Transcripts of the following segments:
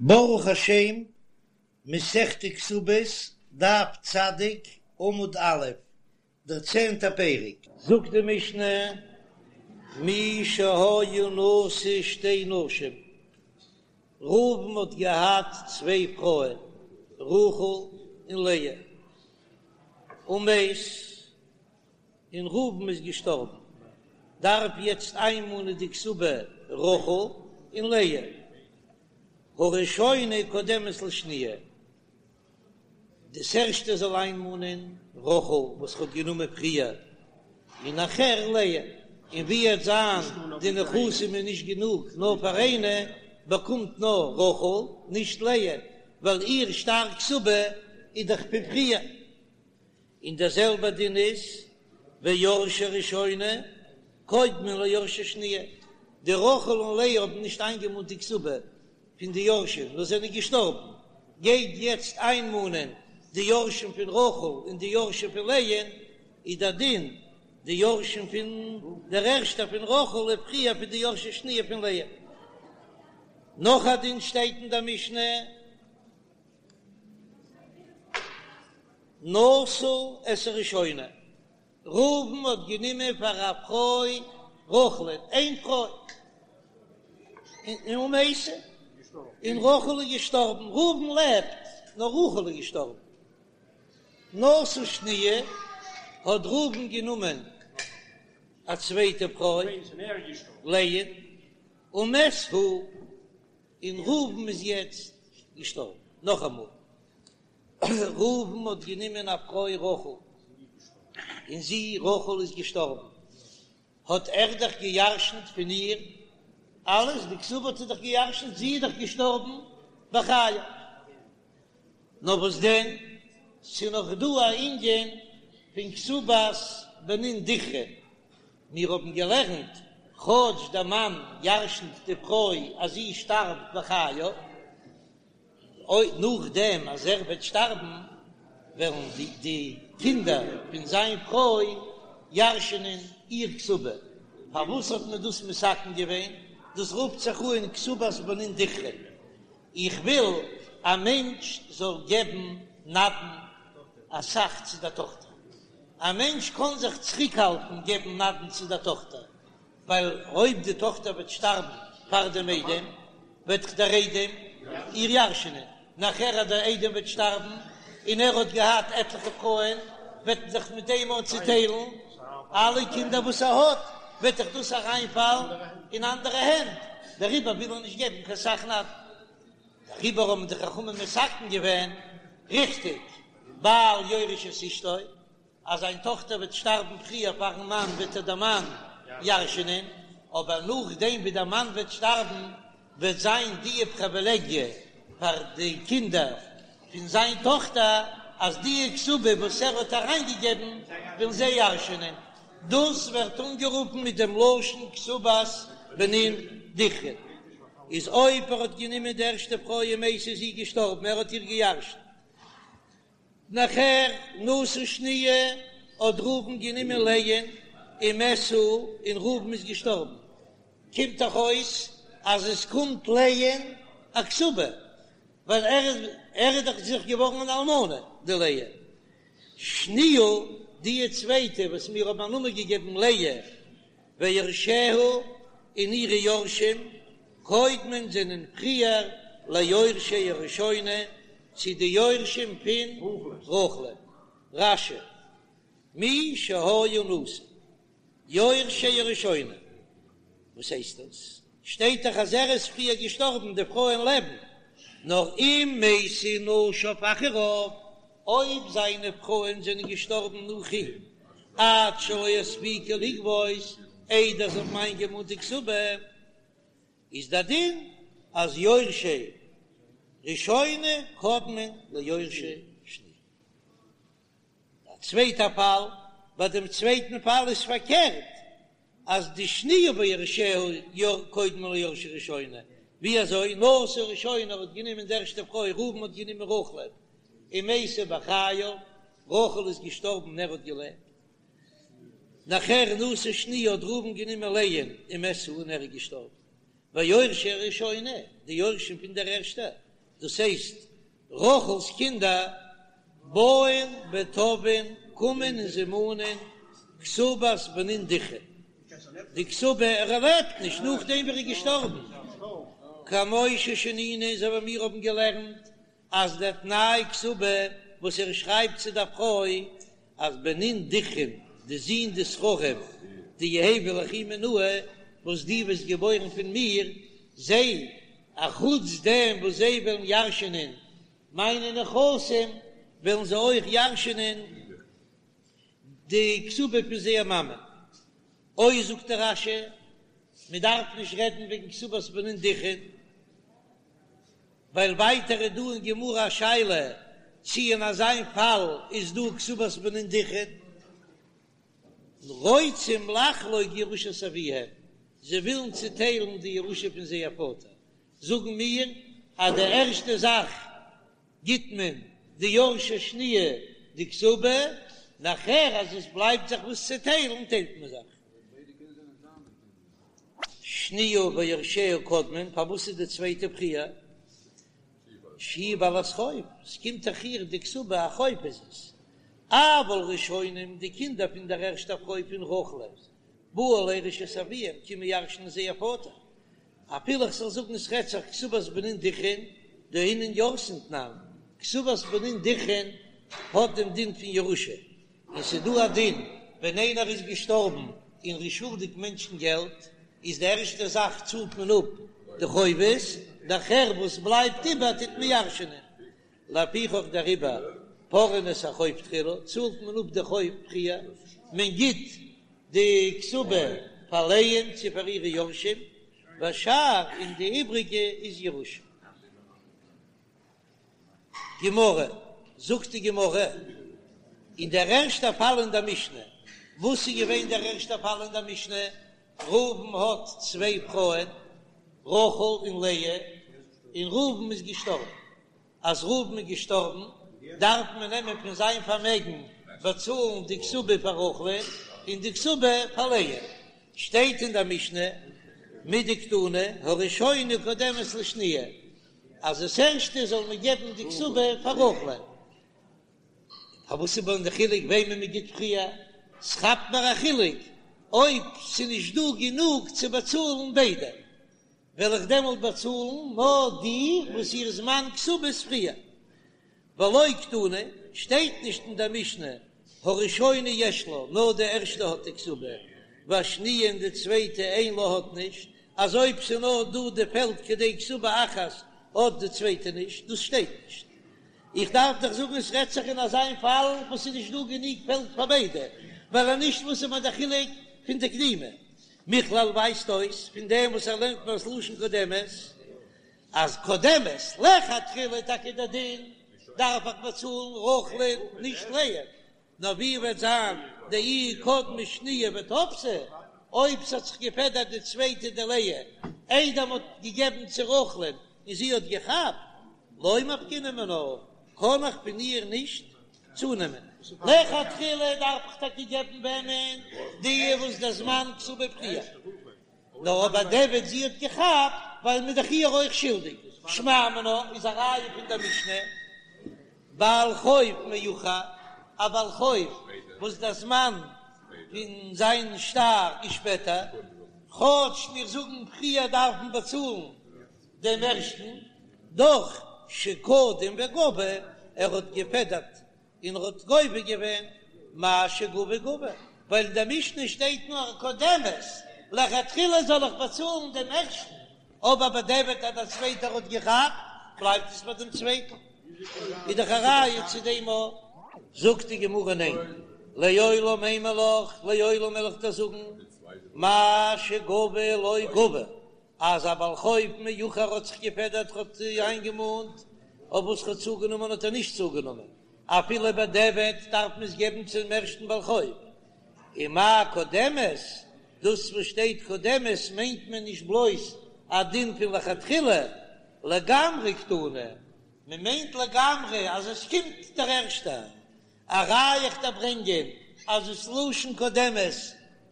ברוך השם, מסכת כתובות, דף צדיק, עמוד א', דער צענטער פרק. זאגט די משנה, מי שהיה נשוי שתי נשים, ראובן האט געהאט צוויי פרויען, רחל און לאה, ומת, און ראובן איז געשטארבן, דארף יעצט איינמאנען די כתובה רחל און לאה, הראשונה קודמת לשניה, דאס ערשטע זאל איינמאנען רחל וואס ער האט גענומען פריער, און נאכער לאה, און ווי עט זיין די נכסים איז נישט גענוג נאר פאר איינע, באקומט נאר רחל נישט לאה, ווייל איר שטר כתובה איז דאך פון פריער. און דער זעלבער דין איז ויורשי ראשונה קודמין ליורשי שניה, די רחל און לאה האבן נישט איינגעמאנט די כתובה פון די יורשים נאר זענען געשטארבן, גייט יעצט איינמאנען די יורשים פון רחל און די יורשים פון לאה'ן, איז דער דין די יורשים פון דער ערשטער פון רחל איז פריער פון די יורשי שניה פון לאה. נאך א דין שטייט אין דער משנה. נשא את הראשונה, ראובן האט גענומען פאר א פרוי רחל'ן, איין פרוי, און ומתה, און רחל איז געשטארבן, ראובן לעבט, נאר רחל איז געשטארבן. נשא שניה, האט ראובן גענומען א צווייטע פרוי, לאה, ומת הוא, און ראובן איז יעצט געשטארבן. נאכאמאל, ראובן האט גענומען א פרוי רחל, און זי רחל איז געשטארבן, האט ער דאך גע'ירש'נט פון איר אלעס, די כתובה האט ער דאך גע'ירש'נט, זי איז דאך געשטארבן בחייו. נאר וואס דען, ס'איז נאך דא א ענין פון כתובת בנין דכרין, מיר האבן געלערנט, כאטש דער מאן ירש'נט די פרוי אז זי שטארבט בחייו, אויב נאכדעם אז ער וועט שטארבן, וועלן די קינדער פון זיין פרוי ירש'נען איר כתובה. פארוואס האט מען דאס מתקן געווען? דאס רופט זיך אן כתובת בנין דכרין. איך וויל א מענטש זאל געבן נדן אסאך צו דער טאכטער. א מענטש קען זיך צוריקהאלטן געבן נדן צו דער טאכטער, ווייל אויב די טאכטער וועט שטארבן פאר דעם איידעם, וועט דאך דער איידעם איר ירש'נען, נאכער אז דער איידעם וועט שטארבן און ער האט געהאט עטליכע פרויען, וועט מען זיך מיט דעם אויך צוטיילן אלע קינדער וואס ער האט, וועט דאך דאס אריינפאלן אין אנדערע הענט, דעריבער וויל ער נישט געבן קיין סך נדן. דעריבער האבן די חכמים מתקן געווען, ריכטיג, בעל יורש את אשתו, אז זיין טאכטער וועט שטארבן פריער פארן מאן וועט איר דער מאן ירש'נען, אבער נאכדעם ווי דער מאן וועט שטארבן וועט זיין די פריווילעגיע פאר די קינדער פון זיין טאכטער אז די כתובה וואס ער האט אריינגעגעבן וועלן זיי ירש'נען, דאס ווערט אנגערופן מיט דעם לשון כתובת בנין דכרין, איז אויב ער האט גענומען די ערשטע פרוי ומתה איז זי געשטארבן ער האט איר געירש'נט. נאכער נשא שניה האט ראובן גענומען לאה'ן ומת הוא און ראובן איז געשטארבן, קומט דאך אויס אז עס קומט לאה'ן א כתובה, ווייל ער איז ער איז דאך זיך געווארן אן אלמנה די לאה. שניה די צווייטע וואס מיר האבן א נאמען געגעבן לאה ויורשיה און אירע יורשים קודמין זענען פריער ליורשי הראשונה צו די יורשים פון רחל'ן. רש"י, מי שהיה נשוי יורשי הראשונה, וואס הייסט דאס? שטייט דאך אז ער איז פריער געשטארבן, די פרויען לעבן נאר אם מתו נשיו אחריו, אויב זיינע פרויען זענען געשטארבן נאך אים, עד שלא הספיקו לגבות, איידער זיי האבן איינגעמאנט די כתובה, איז דער דין אז יורשי ראשונה קודמין ליורשי שניה. א צווייטע פאל, ביי דעם צווייטן פאל איז פארקערט, אז די שניה ויורשיה קודמין ליורשי ראשונה, ווי אזוי נשא ראשונה האט גענומען די ערשטע פרוי, ראובן האט גענומען רחל'ן, ומתה בחייו, רחל איז געשטארבן און ער האט געלעבט, נאכער נשא שניה האט ראובן גענומען לאה'ן ומת הוא און ער איז געשטארבן, ויורשי הראשונה, די יורשים פון דער ערשטער. דאס הייסט רחל'ס קינדער, באין ותובעין, קומען און זיי מאנען כתובת בנין דכרין, די כתובה, ער לעבט נישט נאכדעם ווי ער איז געשטארבן, כמו ששנינו אזוי ווי מיר האבן געלערנט אז דער תנאי כתובה וואס ער שרייבט צו דער פרוי אז בנין דכרין, די זין די זכרים דיהוו ליכי מינאי וואס דו וועסט געבוירן פון מיר, זיי, אחוץ דעם וואס זיי וועלן ירש'ענען מיינע נכסים, וועלן זיי אויך ירש'ענען די כתובה פון זייער מאמע. אוי זאגט דער רש"י, מען דארף נישט רעדן וועגן כתובת בנין דכרין. ווייל ווייטער איז דא אין גמרא א שאלה צי אין אזיין פאל איז דא כתובת בנין דכרין. רוצים לחלוק ירושת אביהם, זיי ווילן צוטיילן די ירושה פון זייער פאטער, זאגן מיר אז די ערשטע זאך גיט מען די יורשי שניה די כתובה, נאכער אז עס בלייבט זיך וואס צו טיילן טיילט מען זיך. שניה ויורשיה קודמין, פארוואס איז די צווייטע פריער? שהיא בעלת חוב, עס קומט דאך איר די כתובה, א חוב איז עס. אבל ראשונים, די קינדער פון דער ערשטער פרוי פון רחל, באו לירש את אביהם, קומען ירש'נען זייער פאטער. אפילו איך זאל זאגן עס רעדט זיך כתובת בנין דכרין, דאינון ירתין תנן, כתובת בנין דכרין האט דעם דין פון ירושה, און ס'איז דא א דין ווען איינער איז געשטארבן און ר'איז שולדיג מענטשן געלט, איז די ערשטע זאך צאלט מען אפ די חובות, נאכער וואס בלייבט איבער טוט מען ירש'נען. לפיכך דעריבער פורעין את החוב תחילה, צאלט מען אפ די חוב פריער, מען גיט די כתובה פאר לאה'ן צו פאר אירע יורשים, והשאר און די איבריגע איז ירושה. גמרא, זאגט די גמרא, אין דער ערשטער פאל אין דער משנה, וואס איז געווען דער ערשטער פאל אין דער משנה? ראובן האט צוויי פרויען, רחל און לאה, און ראובן איז געשטארבן. אז ראובן איז געשטארבן, דארף מען נעמען פון זיין פארמעגן באצאלן די כתובה פאר רחל'ן און די כתובה פאר לאה. שטייט אין דער משנה, מדקתני, הראשונה קודמת לשניה, אז דאס ערשטע זאל מען געבן די כתובה פאר רחל'ן. פארוואס איז דען די חילוק וועמען מען גיט פריער? ס'כאפט מיר א חילוק אויב ס'נישט דא גענוג צו באצאלן ביידע, וועל איך דעמאלט באצאלן נאר די וואס איר זמן כתובה איז פריער. ולא קתני, שטייט נישט אין דער משנה הראשונה יש לה, נאר די ערשטע האט די כתובה, והשניה און די צווייטע אין לה האט נישט, אז אויב ס'איז נאר דא די פעלד כדי כתובה אחת האט די צווייטע נישט, דאס שטייט נישט. איך דארף דאך זאגן עס רעדט זיך אין אזא פאל וואס ס'איז נישט דא גענוג פעלד פאר ביידע, ווייל אז נישט וואס איז מיר די חילוק פון די קדימה? מכלל ווייזט אויס פון דעם וואס ער לערנט מיר ס'לשון קודמת אז קודמת לכתחילה טאקע דער דין דארף איך באצאלן רחל'ן נישט לאה, נאר ווי וועט זיין דאי קדמה שניה ותפסה, אויב ס'האט זיך געפעדערט די צווייטע די לאה איידער מ'האט געגעבן צו רחל'ן און זי האט געכאפט, לא מפקינן מינה, קען איך פון איר נישט צונעמען. לכתחילה דארף איך טאקע געבן וועמען? די וואס דער זמן כתובה פריער. נאר אבער בדיעבד זי האט געכאפט ווייל מ'איז דאך איר אויך שולדיג. שמע מינה איז א ראיה פון דער משנה, בעל חוב מאוחר, א בעל חוב וואס דער זמן פון זיין שטר איז שפעטער, כאטש מיר זאגן פריער דארף מען באצאלן דעם ערשטן, דאך שקדם וגבה, ער האט געפעדערט און ער האט גובה געווען מה שגבה גבה, ווייל אין דער משנה שטייט נאר קודמת, לכתחילה זאל איך באצאלן דעם ערשטן, אבער בדיעבד אז דער צווייטער האט געכאפט, בלייבט עס ביי דעם צווייטן, איז דאך א ראיה צו דעם אויך. זאגט די גמרא ניין, לעולם אימא לך, לעולם וועל איך דיר זאגן, מה שגבה לא גבה, אז א בעל חוב מאוחר האט זיך געפעדערט האט איינגעמאנט, אויף וואס ער האט צוגענומען האט ער נישט צוגענומען, אפילו בדיעבד דארף מען עס געבן צום ערשטן בעל חוב. ומאי קודמת, דאס וואס שטייט קודמת מיינט מען נישט בלויז א דין פון לכתחילה, לגמרי קתני, מען מיינט לגמרי אז עס קומט דער ערשטער. א ראיה איך דיר ברענגען אז דאס לשון קודמת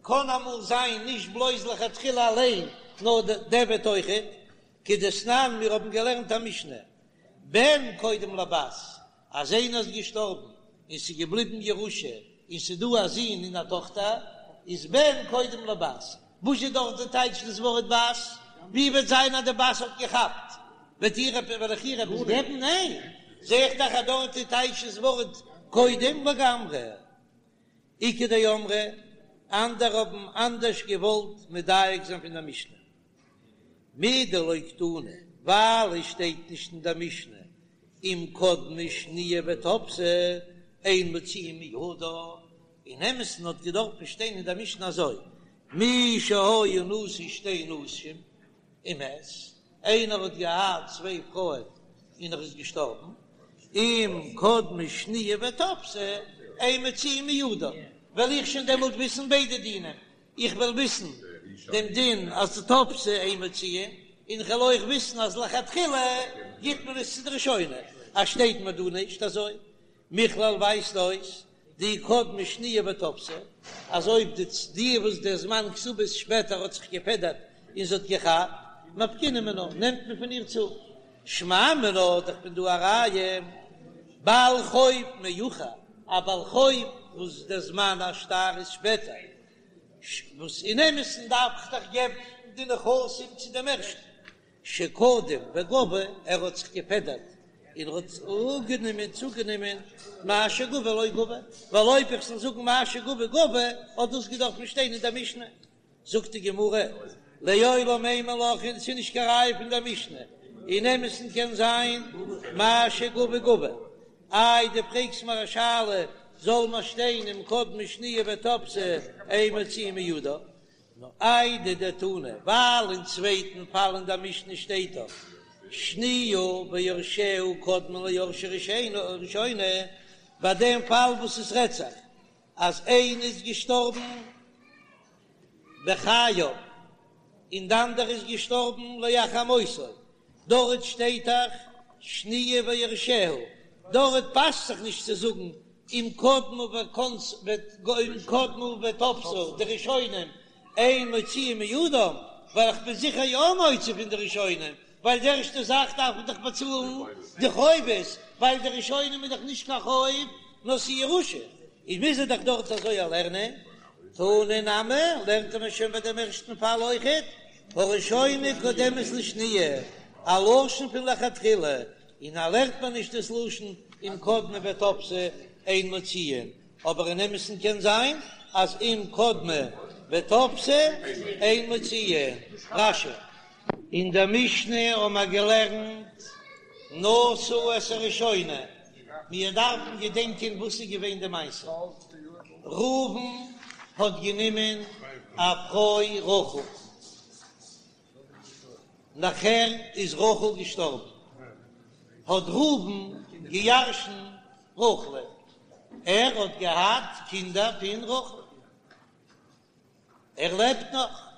קען אמאל זיין נישט בלויז לכתחילה אליין נאר בדיעבד אויכעט, כדתנן מיר האבן געלערנט א משנה. בן קודם לבת, אז איינער איז געשטארבן און ס'איז געבליבן ירושה און ס'איז דא א זון און א טאכטער, איז בן קודם לבת. וואס איז דארט די טייטש דאס ווארט בת? ווי וועט זיין אז די בת האט געכאפט? וועט איר וועל איך איר עפעס געבן? ניין! זע איך דאך אז דארט איז טייטש דאס ווארט קודם לגמרי. איכא דאמרי, אנדערע האבן אנדערש געוואלט מדייק זיין פון דער משנה. מדלא קתני, ווייל עס שטייט נישט אין דער משנה, אם קדמה שניה ותפסה, אין מוציאין מידה, אין אמת'ן האט געדארפט שטיין אין דער משנה אזוי, מי שהיה נשוי שתי נשים ומת, איינער האט געהאט צוויי פרויען און ער איז געשטארבן, אם קדמה שניה ותפסה, אין מוציאין מידה, וועל איך שוין דעמאלט וויסן ביידע דינים, איך וועל וויסן דעם דין אז תפסה אין מוציאין, און איך וועל אויך וויסן אז לכתחילה גיט מען עס צו די ראשונה, אז שטייט מיר דא נישט אזוי. מכלל ווייזט אויס דאי קדמה שניה ותפסה, אז אויב די די וואס דער זמן כתובה איז שפעטער האט זיך געפעדערט און זי האט געכאפט, מפקינן מינה, נעמט מען פון איר צו. שמע מינה, דאך פון דא א ראיה, בעל חוב מאוחר, א בעל חוב וואס דער זמן השטר איז שפעטער, וואס אין אמת'ן דארף איך דאך געבן די נכסים צו דעם ערשטן, שקדם וגבה, ער האט זיך געפעדערט און האט אפגענומען, צוגענומען, מה שגבה לא גבה, ווייל אויב איך זאל זאגן מה שגבה גבה, האט דאס געדארפט שטיין אין דער משנה. זאגט די גמרא, לעולם אימא לך, און ס'איז נישט קיין ראיה פון דער משנה, אין אמת'ן קען זיין מה שגבה גבה. איי דו פרעגסט מיר א שאלה, זאל מיר שטיין אם קדמה שניה ותפסה אין מוציאין מידה, נאר איידי דתנא, ווייל אין צווייטן פאל אין דער משנה שטייט דאך שניה ויורשיה קודמין ליורשי ראשונה, ביי דעם פאל וואס עס רעדט זיך אז איינע איז געשטארבן בחייו און די אנדערע איז געשטארבן לאחר מותו, דארט שטייט דאך שניה ויורשיה, דארט פאסט זיך נישט צו זאגן אם קדמה וכנס אם קדמה ותפסה די ראשונים אין מוציאין מידם, ווייל איך בין זיכער יא מוציא פון די ראשונים, ווייל די ערשטע זאך דארף מען דאך באצאלן די חובות, ווייל די ראשונים איז דאך נישט קיין חוב נאר ס'איז ירושה, איז מוז ער דאך דארט אזוי לערנען. תנא נמי, לערנט מען שוין ביי דעם ערשטן פאל אויכעט, הראשונה קודמת לשניה, א לשון פון לכתחילה, און א לערנט מען נישט דאס לשון אם קדמה ותפסה אין מוציאין, אבער אין אמת'ן קען זיין אז אם קדמה ותפסה אין מוציאין. רש"י. אין דער משנה האבן מיר געלערנט נשא את הראשונה, מיר דארפן געדענקען וואס איז געווען די מעשה, ראובן האט גענומען א פרוי רחל, נאכער איז רחל געשטארבן, האט ראובן געירשנט רחל'ן, ער האט געהאט קינדער פון רחל. ער לעבט נאך,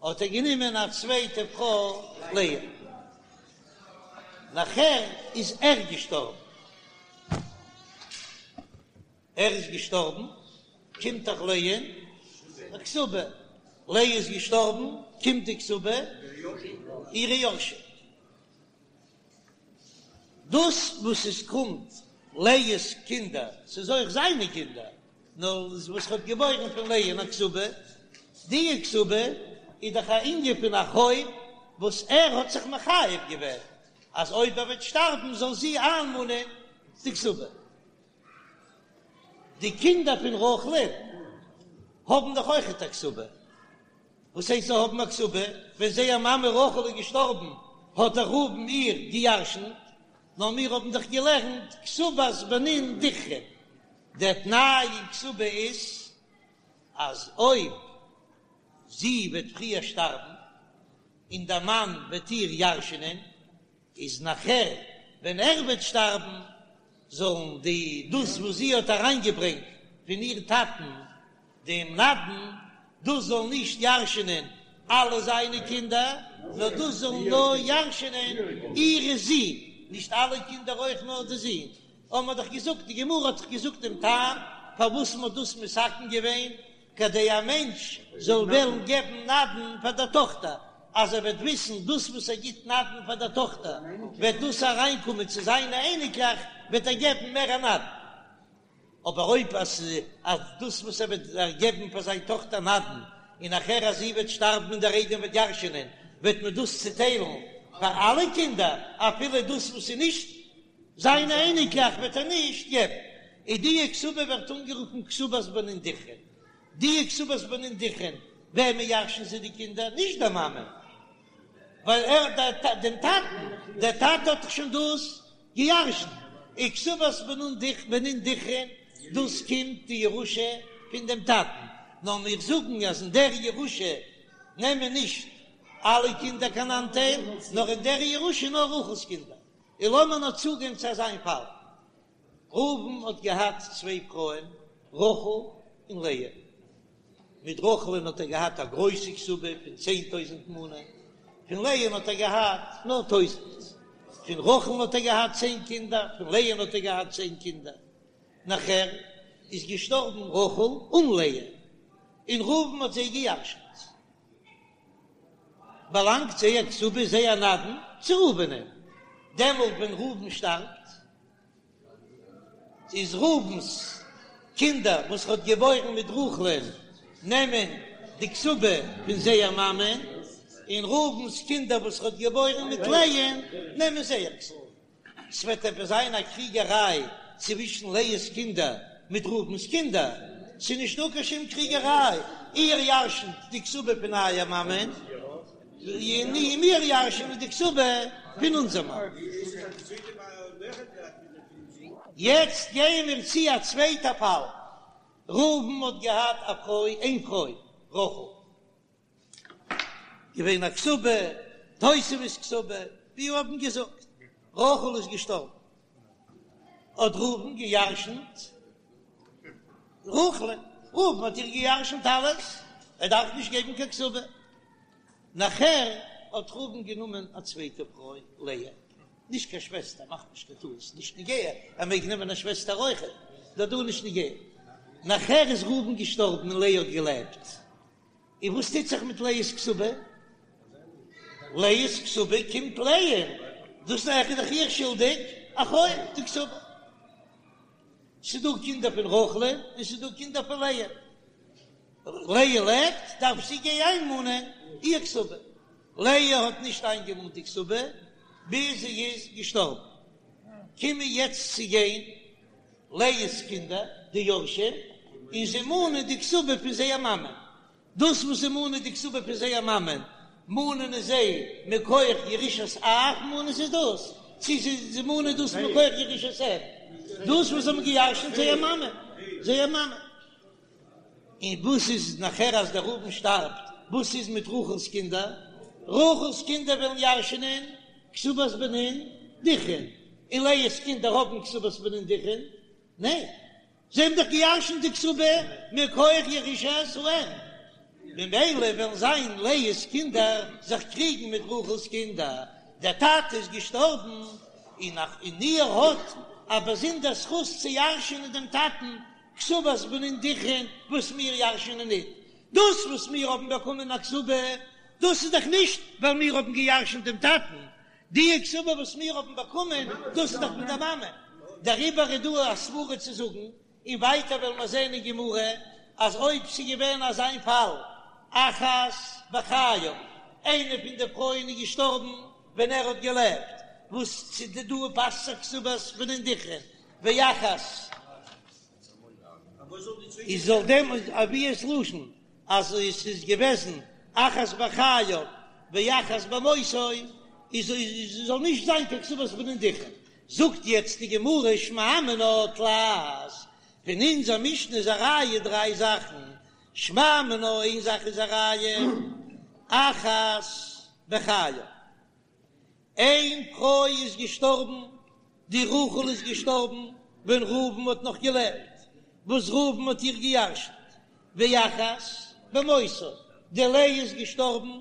האט ער גענומען א צווייטע פרוי לאה, נאכער איז ער געשטארבן, ער איז געשטארבן, קומט דאך לאה'ן א כתובה, לאה איז געשטארבן, קומט די כתובה אירע יורשים. דאס וואס עס קומט לאה'ס קינדער, ס'איז אויך זיינע קינדער, נאר וואס ער האט געבוירן פון לאה'ן א כתובה, די כתובה איז דאך א ענין פון א חוב וואס ער האט זיך מחייב געווען אז אויב ער וועט שטארבן זאל זי איינמאנען די כתובה. די קינדער פון רחל'ן האבן דאך אויכעט א כתובה. וואס הייסט זיי האבן א כתובה? ווען זייער מאמע רחל איז געשטארבן האט דאך ראובן איר געירשנט, נאר מיר האבן דאך געלערנט כתובת בנין דכרין, דער תנאי אין כתובה איז אז אויב זי וועט פריער שטארבן און דער מאן וועט איר ירש'נען, איז נאכער ווען ער וועט שטארבן זאלן די דאס וואס זי האט אריינגעברענגט פון איר טאטן דעם נדן, דאס זאל נישט ירש'נען אלע זיינע קינדער, נאר דאס זאלן נאר ירש'נען אירע זין, נישט אלע קינדער אויך נאר די זין, האבן מיר דאך געזאגט, די גמרא האט דאך געזאגט דעם טעם פארוואס מען האט דאס מתקן געווען, כדי א מענטש זאל וועלן געבן נדן פאר דער טאכטער. אז ער וועט וויסן דאס וואס ער גיט נדן פאר דער טאכטער וועט דאס אריינקומען צו זיינע אייניקלעך וועט ער געבן מער א נדן. אבער אויב אז אז דאס וואס ער וועט געבן פאר זיין טאכטער נדן, און נאכער אז זי וועט שטארבן און דער איידעם וועט ירש'ענען, וועט מען דאס צוטיילן פאר אלע קינדער, אפילו דאס וואס איז נישט זיינע אייניקלעך וועט ער נישט געבן. און די כתובה ווערט אנגערופן כתובת בנין דכרין. די כתובת בנין דכרין, וועמען ירש'ן זיי די קינדער? נישט די מאמע, ווייל ער דעם טאטן, דער טאטע האט דאך שוין דאס געירשנט, און כתובת בנין דכרין, דאס קומט די ירושה פון דעם טאטן, נאר מיר זאגן אז אין דער ירושה נעמען נישט אלע קינדער קיין אנטייל, נאר אין דער ירושה נאר רחל'ס קינדער. און לאמיר נאר צוגיין צו אזא פאל, ראובן האט געהאט צוויי פרויען, רחל און לאה. מיט רחל'ן האט ער געהאט א גרויסע כתובה פון 10,000 מנה, פון לאה'ן האט ער געהאט נאר טויזנט. פון רחל'ן האט ער געהאט צען קינדער, פון לאה'ן האט ער געהאט צען קינדער. נאכער איז געשטארבן רחל און לאה, און ראובן האט זיי געירשנט. באלאנגט זייער כתובה, זייער נדן, צו ראובנ'ען. דעמאלט ווען ראובן שטארבט, איז ראובן'ס קינדער וואס ער האט געבוירן מיט רחל'ען נעמען די כתובה פון זייער מאמען, און ראובן'ס קינדער וואס ער האט געבוירן מיט לאה'ן נעמען זייער כתובה. ס'וועט עפעס זיין א קריגעריי צווישן לאה'ס קינדער מיט ראובן'ס קינדער? ס'איז נישטא קיין שום קריגעריי, איר ירשנ'ט די כתובה פון אייער מאמען, און מיר ירש'נען די כתובה פון אונזער מאמע. יעצט גייען מיר צו א צווייטע פאל, ראובן האט געהאט א פרוי, איין פרוי, רחל, געווען א כתובה, תוספת כתובה, ווי מיר האבן געזאגט, רחל איז געשטארבן, האט ראובן געירשנט רחל'ן, ראובן האט איר געירשנט אלעס, ער דארף נישט געבן קיין כתובה. נאכער האט ראובן גענומען א צווייטע פרוי, לאה, נישט קיין שוועסטער, מאך נישט קיין טעות, נישט נוגע, ער מעג נעמען א שוועסטער אויכעט, דא דא נישט נוגע. נאכער איז ראובן געשטארבן און לאה האט געלעבט, און וואס טוט זיך מיט לאה'ס כתובה? לאה'ס כתובה קומט לאה'ן, דאס איז דאך איר שולדיג א חוב די כתובה. ס'איז דא קינדער פון רחל'ן און ס'איז דא קינדער פון לאה. לאה לעבט, דארף זי גיין איינמאנען איר כתובה. לאה האט נישט איינגעמאנט די כתובה ביז זי איז געשטארבן. קומען יעצט צו גיין לאה'ס קינדער, די יורשים, און זיי מאנען די כתובה פון זייער מאמע. דאס וואס זיי מאנען די כתובה פון זייער מאמען, מאנען זיי מכח ירושת אב מאנען זיי דאס, צו זיי מאנען דאס מכח ירושת אם, דאס וואס זיי האבן געירשנט זייער מאמע, זייער מאמע. און וואס איז נאכער אז דער ראובן שטארבט, וואס איז מיט רחל'ס קינדער? רחל'ס קינדער וועלן ירש'נען כתובת בנין דכרין, און לאה'ס קינדער האבן כתובת בנין דכרין? ניין, זיי האבן דאך געירשנט די כתובה מכח ירושת האם, ממילא וועלן זיין לאה'ס קינדער זיך קריגן מיט רחל'ס קינדער, דער טאטע איז געשטארבן און און איר האט א באזונדער זכות צו ירש'נען דעם טאטן כתובת בנין דכרין וואס מיר ירש'נען ניט, דאס וואס מיר האבן באקומען א כתובה, דאס איז דאך נישט ווייל מיר האבן געירשנט דעם טאטן, די כתובה וואס מיר האבן באקומען, דאס איז דאך פון דער מאמע, דעריבער איז דא א סברא צו זאגן, און ווייטער וועלן מיר זען אין גמרא, אז אויב ס'איז געווען אזא פאל, אחת בחייו, איינע פון די פרויען איז געשטארבן ווען ער האט געלעבט, וואס צו די דא פאסט זיך כתובת בנין דכרין, ואחת איז זאל דעם אבי'ס לשון אז עס איז געוועזן אחת בחייו ואחת במותו איז זאל נישט זיין קיין כתובת בנין דכרין. זאגט יעצט די גמרא שמע מינה תלת, פון אונזער משנה איז א ראיה דריי זאכן, שמע מינה איין זאך איז א ראיה אחת בחייו, איין פרוי איז געשטארבן, די רחל איז געשטארבן ווען ראובן האט נאך געלעבט, וואס ראובן האט איר געירשנט, ואחת במותו, די לאה איז געשטארבן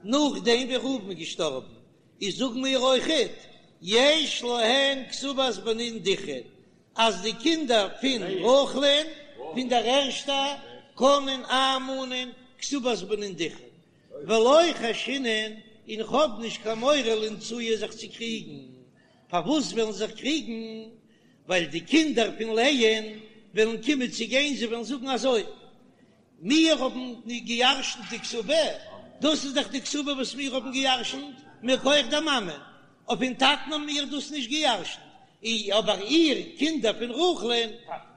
נאכדעם ווי ראובן איז געשטארבן, איז זאגן מיר אויכעט, יש להן כתובת בנין דכרין, אז די קינדער פון רחל'ן, פון דער ערשטע, קענען איינמאנען כתובת בנין דכרין. ולא חיישינן, און כ'האב נישט קיין מורא לאינצויי זיך צו קריגן. פארוואס וועלן זיך קריגן? ווייל די קינדער פון לאה'ן וועלן קומען צו גיין, זיי וועלן זאגן אזוי, מיר האבן געירשנט די כתובה, דאס איז דאך די כתובה וואס מיר האבן געירשנט מכח דער מאמע, אויף פון טאטן האבן מיר דאס נישט געירשנט, אבער איר, קינדער פון רחל'ן,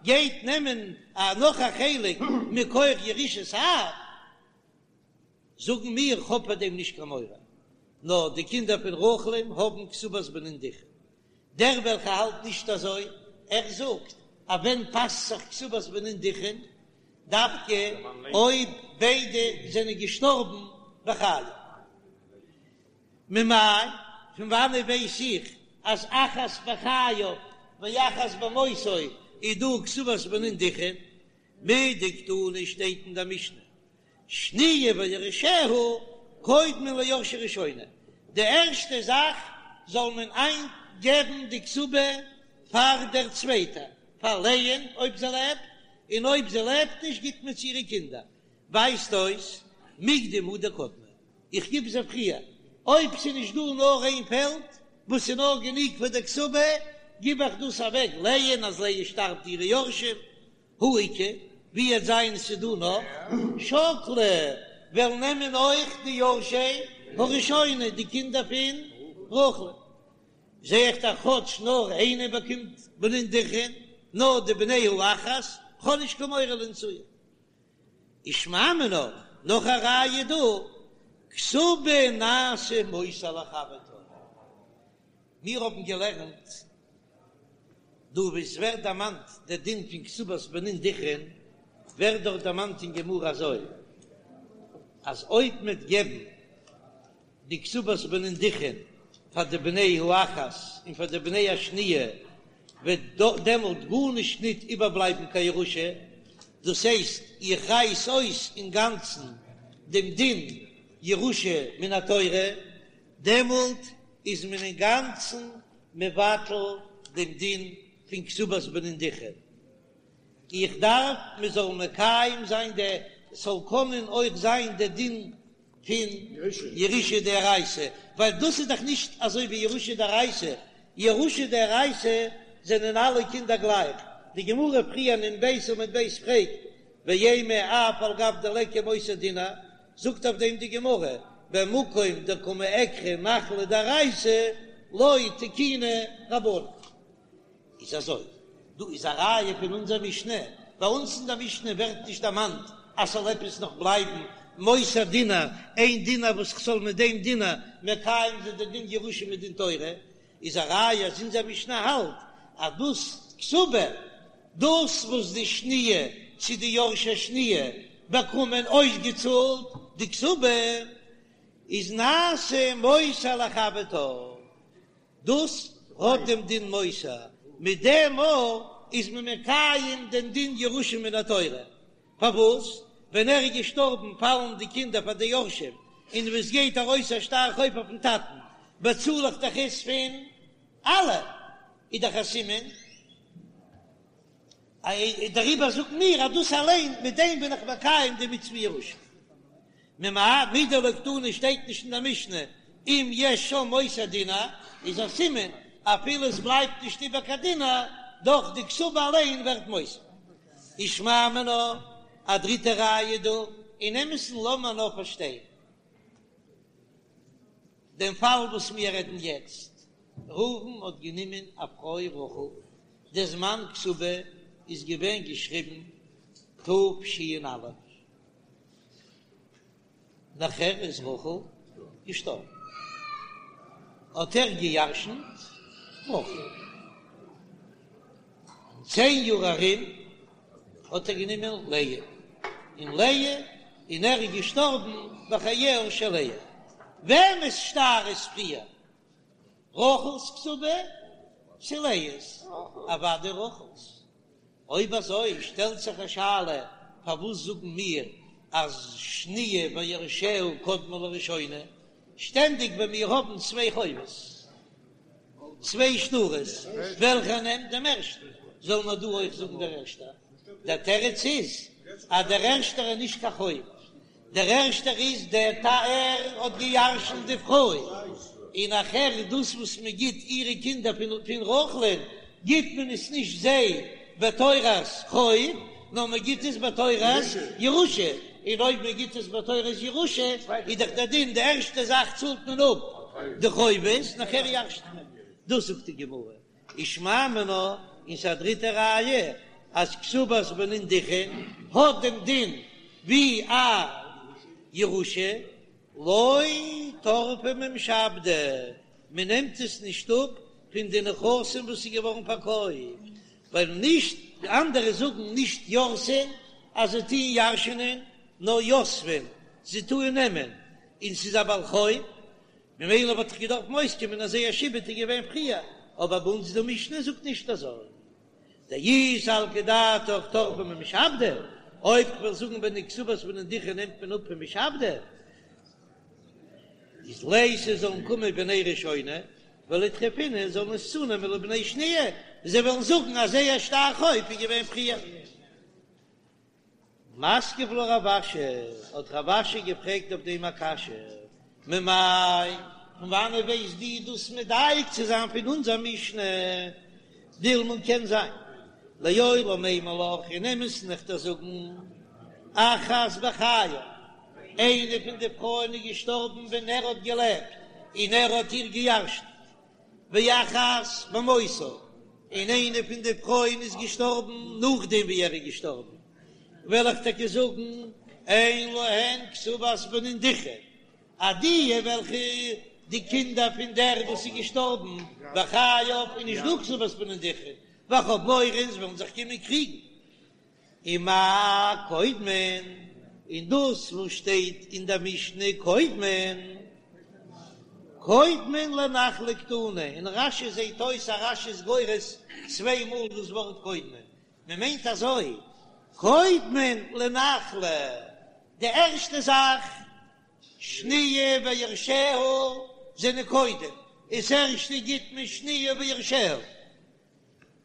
גייט נעמען נאך א חלק מכח ירושת אב. זאגן מיר, כ'האב פאר דעם נישט קיין מורא, נאר די קינדער פון רחל'ן האבן כתובת בנין דכרין. דער וועלכער האלט נישט אזוי, ער זאגט אז ווען פאסט זיך כתובת בנין דכרין? דווקא אויב ביידע זענען געשטארבן בחייו. ממאי, פון וואנעט ווייס איך אז אחת בחייו ואחת במותו איז דא כתובת בנין דכרין? מדקתני שטייט אין דער משנה שניה ויורשיה קודמין ליורשי ראשונה, די ערשטע זאך זאל מען איינגעבן די כתובה פאר דער צווייטער, פאר לאה'ן אויב זי לעבט, און אויב זי לעבט נישט גיט מען צו אירע קינדער, ווייזט אויס מיקדם הוא דקדמי, איך גיב זיי פריער, אויב ס'איז נישט דא נאר איין פעלד וואס איז נאר גענוג פאר די כתובה, גיב איך דאס אוועק לאה'ן אז לאה שטארבט אירע יורשים, הא איכא, ווי וועט זיין ס'דא נאך שקלי וועלן נעמען אויך די יורשי הראשונה די קינדער פון רחל, זע איך דאך כאטש נאר איינער באקומט בנין דכרין, נאר די בני האחת, כ'האב נישט קיין מורא לאינצויי. ושמע מינה, נאך א ראיה דא, כתובה נעשה מותר לחברתה. מיר האבן געלערנט דא וואו עס ווערט דערמאנט דער דין פון כתובת בנין דכרין, ווערט דארט דערמאנט אין גמרא אזוי, אז אויב מ'וועט געבן די כתובת בנין דכרין פאר די בני האחת און פאר די בני השניה, וועט דעמאלט גארנישט ניט איבערבלייבן קיין ירושה, דאס הייסט איך רייס אויס אינגאנצן דעם דין ירושה מן התורה, דעמאלט איז מען אינגאנצן מבטל דעם דין פון כתובת בנין דכרין. איך דארף מען זאל מקיים זיין די, ס'זאל קענען אויך זיין די דין פון ירושה דאורייתא, ווייל דאס איז דאך נישט אזוי ווי ירושה דאורייתא, ירושה דאורייתא זענען אלע קינדער גלייך, די גמרא פריער אין נ"ב עמוד ב' פרעגט, ואימא אף על גב דליכא מותר דינר, זאגט אויף דעם די גמרא, במקום דקא מעקרא נחלה דאורייתא לא תקינו רבנן. איז אזוי, דא איז א ראיה פון אונזער משנה, ביי אונז אין דער משנה ווערט נישט דערמאנט אז ס'זאל עפעס נאך בלייבן מותר דינר, איין דינר וואס כ'זאל מיט דעם דינר מקיים זיין די דין ירושה מדין תורה, איז א ראיה אז אונזער משנה האלט אז דאס כתובה, דאס וואס די שניה צו די יורשי שניה באקומען אויסגעצאלט די כתובה, איז נעשה מותר לחברתה, דאס האט דעם דין מותר, מיט דעם מאל איז מען מקיים דעם דין ירושה מן התורה, פארוואס ווען ער איז געשטארבן פאלן די קינדער פאר די יורשים, און ווען עס גייט ארויס א שטר חוב אויפן טאטן באצאל איך דאך עס פון אלע, איז דאך א סימן, דעריבער זאגן מיר אז דאס אליין מיט דעם בין איך מקיים די מצוה ירושה. ממאי מדלא קתני שטייט נישט אין דער משנה אם יש שם מותר דינר, איז א סימן אפילו עס בלייבט נישט איבער קיין דינר, דאך די כתובה אליין ווערט מותר. ושמע מינה, א דריטע ראיה דא, אין אמת'ן לאמיר נאר פארשטיין דעם פאל וואס מיר רעדן יעצט, ראובן האט גענומען א פרוי רחל, די זמן כתובה איז געווען געשריבן תש"א, נאכער איז רחל געשטארבן, האט ער געירשנט רחל. אין צען יאר ארום האט ער גענומען לאה, און לאה, און ער איז געשטארבן בחייה של לאה. וועמענס שטר איז פריער, רחל'ס כתובה צו לאה'ס? אוודאי רחל'ס. אויב אזוי שטעלט זיך א שאלה, פארוואס זאגן מיר אז שניה ויורשיה קודמין לראשונה? שטענדיג ווען מיר האבן צוויי חובות, צוויי שטרות, וועלכער נעמט דעם ערשטן? זאל מען דא אויך זאגן דער ערשטער? דער תירוץ איז אז דער ערשטער איז נישט קיין חוב. דער ערשטער איז דער טאטע האט געירשנט די פרוי, און נאכהער דאס וואס מען גיט אירע קינדער פון רחל'ן גיט מען עס נישט זיי בתורת חוב, נאר מען גיט עס בתורת ירושה, און אויב מען גיט עס בתורת ירושה איז דאך דער דין די ערשטע זאך צאלט מען אפ די חובות נאכהער ירש'ט מען, דאס זאגט די גמרא, ושמע מינה, און ס'איז א דריטע ראיה אז כתובת בנין דכרין האט דעם דין ווי א ירושה, לא טרפא ממשעבדי, מען נעמט עס נישט אפ פון די נכסים וואס איז געווארן פארקויפט, ווייל נישט, די אנדערע זאגן נישט ירתין אז זיי טוען ירש'נען, נאר יתבין, זיי טוען נעמען, און ס'איז א בעל חוב, ממילא וואלט דאך געדארפט אויסקומען אז זייער שעבוד איז געווען פריער, אבער ביי אונז די משנה זאגט נישט אזוי. דאי סלקא דעתך טרפא ממשעבדי, אויב כ'וועל זאגן ביי די כתובת בנין דכרין נעמט מען אפ פון משעבדי, איז ליתו זאלן קומען בני ראשונה וליטרפינהו זאלן עס צונעמען לבני שניה, זיי וועלן זאגן אז זייער שטר חוב איז געווען פריער. מתקיף לה רב אשי, האט רב אשי געפרעגט אויף דעם א קשיא, ממאי, פון וואנעט ווייסט דו דאס מדייק צו זיין פון אונזער משנה? דילמא קען זיין, לעולם אימא לך, אין אמת'ן וועל איך דיר זאגן, אחת בחייו, איינע פון די פרויען איז געשטארבן ווען ער האט געלעבט און ער האט איר געירשנט, ואחת במותו, און איינע פון די פרויען איז געשטארבן נאכדעם ווי ער איז געשטארבן, וועל איך טאקע זאגן, אין להן כתובת בנין דכרין, אז די וועלכע די קינדער פון דער וואס איז געשטארבן בחייו איז נישט דא כתובת בנין דכרין, ווייל כ'האב מורא זיי וועלן זיך קומען קריגן. ומאי קודמין, און דאס וואס שטייט אין דער משנה קודמין, קודמין לנחלה קתני, אין רש"י זעט אויס אז רש"י איז גורס צוויי מאל דאס ווארט קודמין, מען מיינט אזוי, קודמין לנחלה, די ערשטע זאך, שניה ויורשיה זענען קודם, דאס ערשטע גיט מען שניה ויורשיה.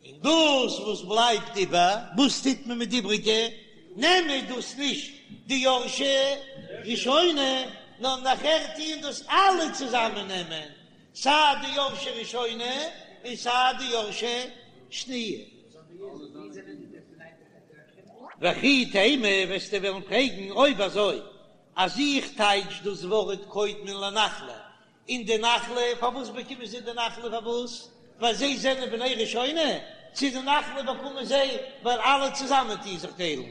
און דאס וואס בלייבט איבער, וואס טוט מען מיט די איבריגע? נעמען דאס נישט די יורשי ראשונה, נאר נאכער טוען דאס אלע צוזאמען נעמען, סיי די יורשי ראשונה און סיי די יורשי שניה. וכי תימא, וועסטו וועלן פרעגן, אויב אזוי אז איך טייטש דאס ווארט קודמין לנחלה און די נחלה, פארוואס באקומען זיי די נחלה? פארוואס? ווייל זיי זענען בני ראשונה? צו די נחלה באקומען זיי ווייל אלע צוזאמען טוען זיך טיילן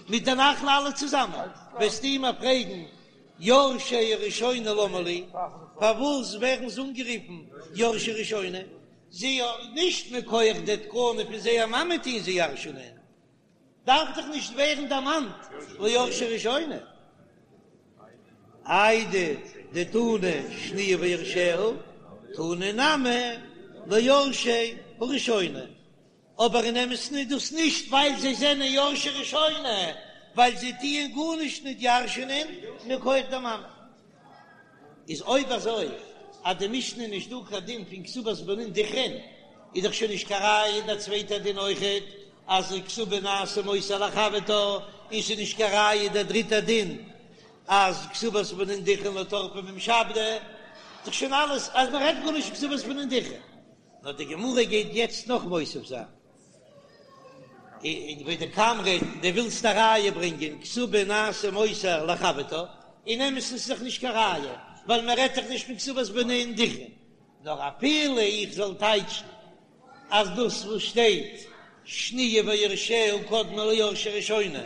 מיט די נחלה אלע צוזאמען? וועסטו מיר פרעגן יורשי ראשונה למה לי, פארוואס ווערן זיי אנגערופן יורשי ראשונה? זיי נישט מכח די תקנה פון זייער מאמע טוען זיי ירש'נען. דארף דאך נישט ווערן דערמאנט ליורשי ראשונה. איידי דתנא שניה ויורשיה, תנא נמי ליורשי הראשונה. אבער אין אמת'ן איז דאס נישט ווייל זיי זענען יורשי ראשונה, ווייל זיי טוען גארנישט נישט ירש'נען מכח די מאמע. איז אויב אזוי אז די משנה איז נישט דא קיין דין פון כתובת בנין דכרין, איז דאך שוין נישט קיין ראיה דער צווייטער דין אויכעט אז כתובה נעשה מותר לחברתה, און ס'איז נישט קיין ראיה דער דריטער דין אז כתובת בנין דכרין לא טרפא ממשעבדי, איז דאך שוין אלעס אז מען רעדט גארנישט פון כתובת בנין דכרין. נאר די גמרא גייט יעצט נאך מוסיף זיין. און ודקאמרת דו ווילסט א ראיה ברענגען כתובה נעשה מותר לחברתה, אין אמת'ן איז דאך נישט קיין ראיה, ווייל מען רעדט דאך נישט פון כתובת בנין דכרין, נאר אפילו איך זאל טייטשן אז דאס וואס שטייט שניה ויורשיה קודמין ליורשי ראשונה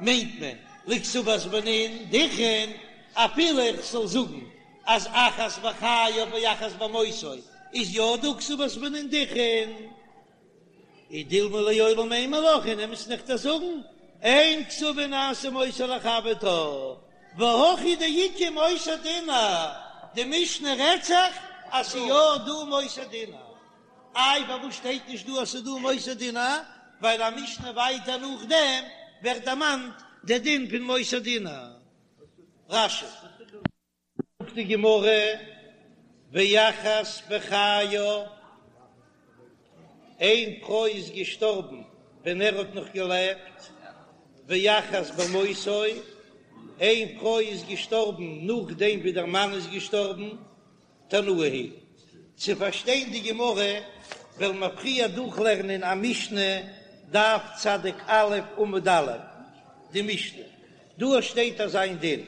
מיינט מען לכתובת בנין דכרין, אפילו איך זאל זאגן אז אחת בחייו ואחת במותו איז יא דא כתובת בנין דכרין. אי דילמא לעולם אימא לך אין אמת'ן וועל איך דיר זאגן, אין כתובה נעשה מותר לחברתה, והכא דאיכא מותר דינר, די משנה רעדט זיך אז ס'איז יא דא מותר דינר, איי פארוואס שטייט נישט דא אז ס'איז דא מותר דינר, ווייל א משנה ווייטער נאכדעם ווערט דערמאנט די דין פון מותר דינר. רש"י. זאגט די גמרא, ואחת בחייו, איין פרוי איז געשטארבן ווען ער האט נאך געלעבט, ואחת במותו, איין פרוי איז געשטארבן נאכדעם ווי דער מאן איז געשטארבן, תנאי היא. צו פארשטיין די גמרא וועלן מיר פריער דורכלערנען א משנה, דף צדיק א' עמוד א', די משנה דא שטייט אזא איין דין,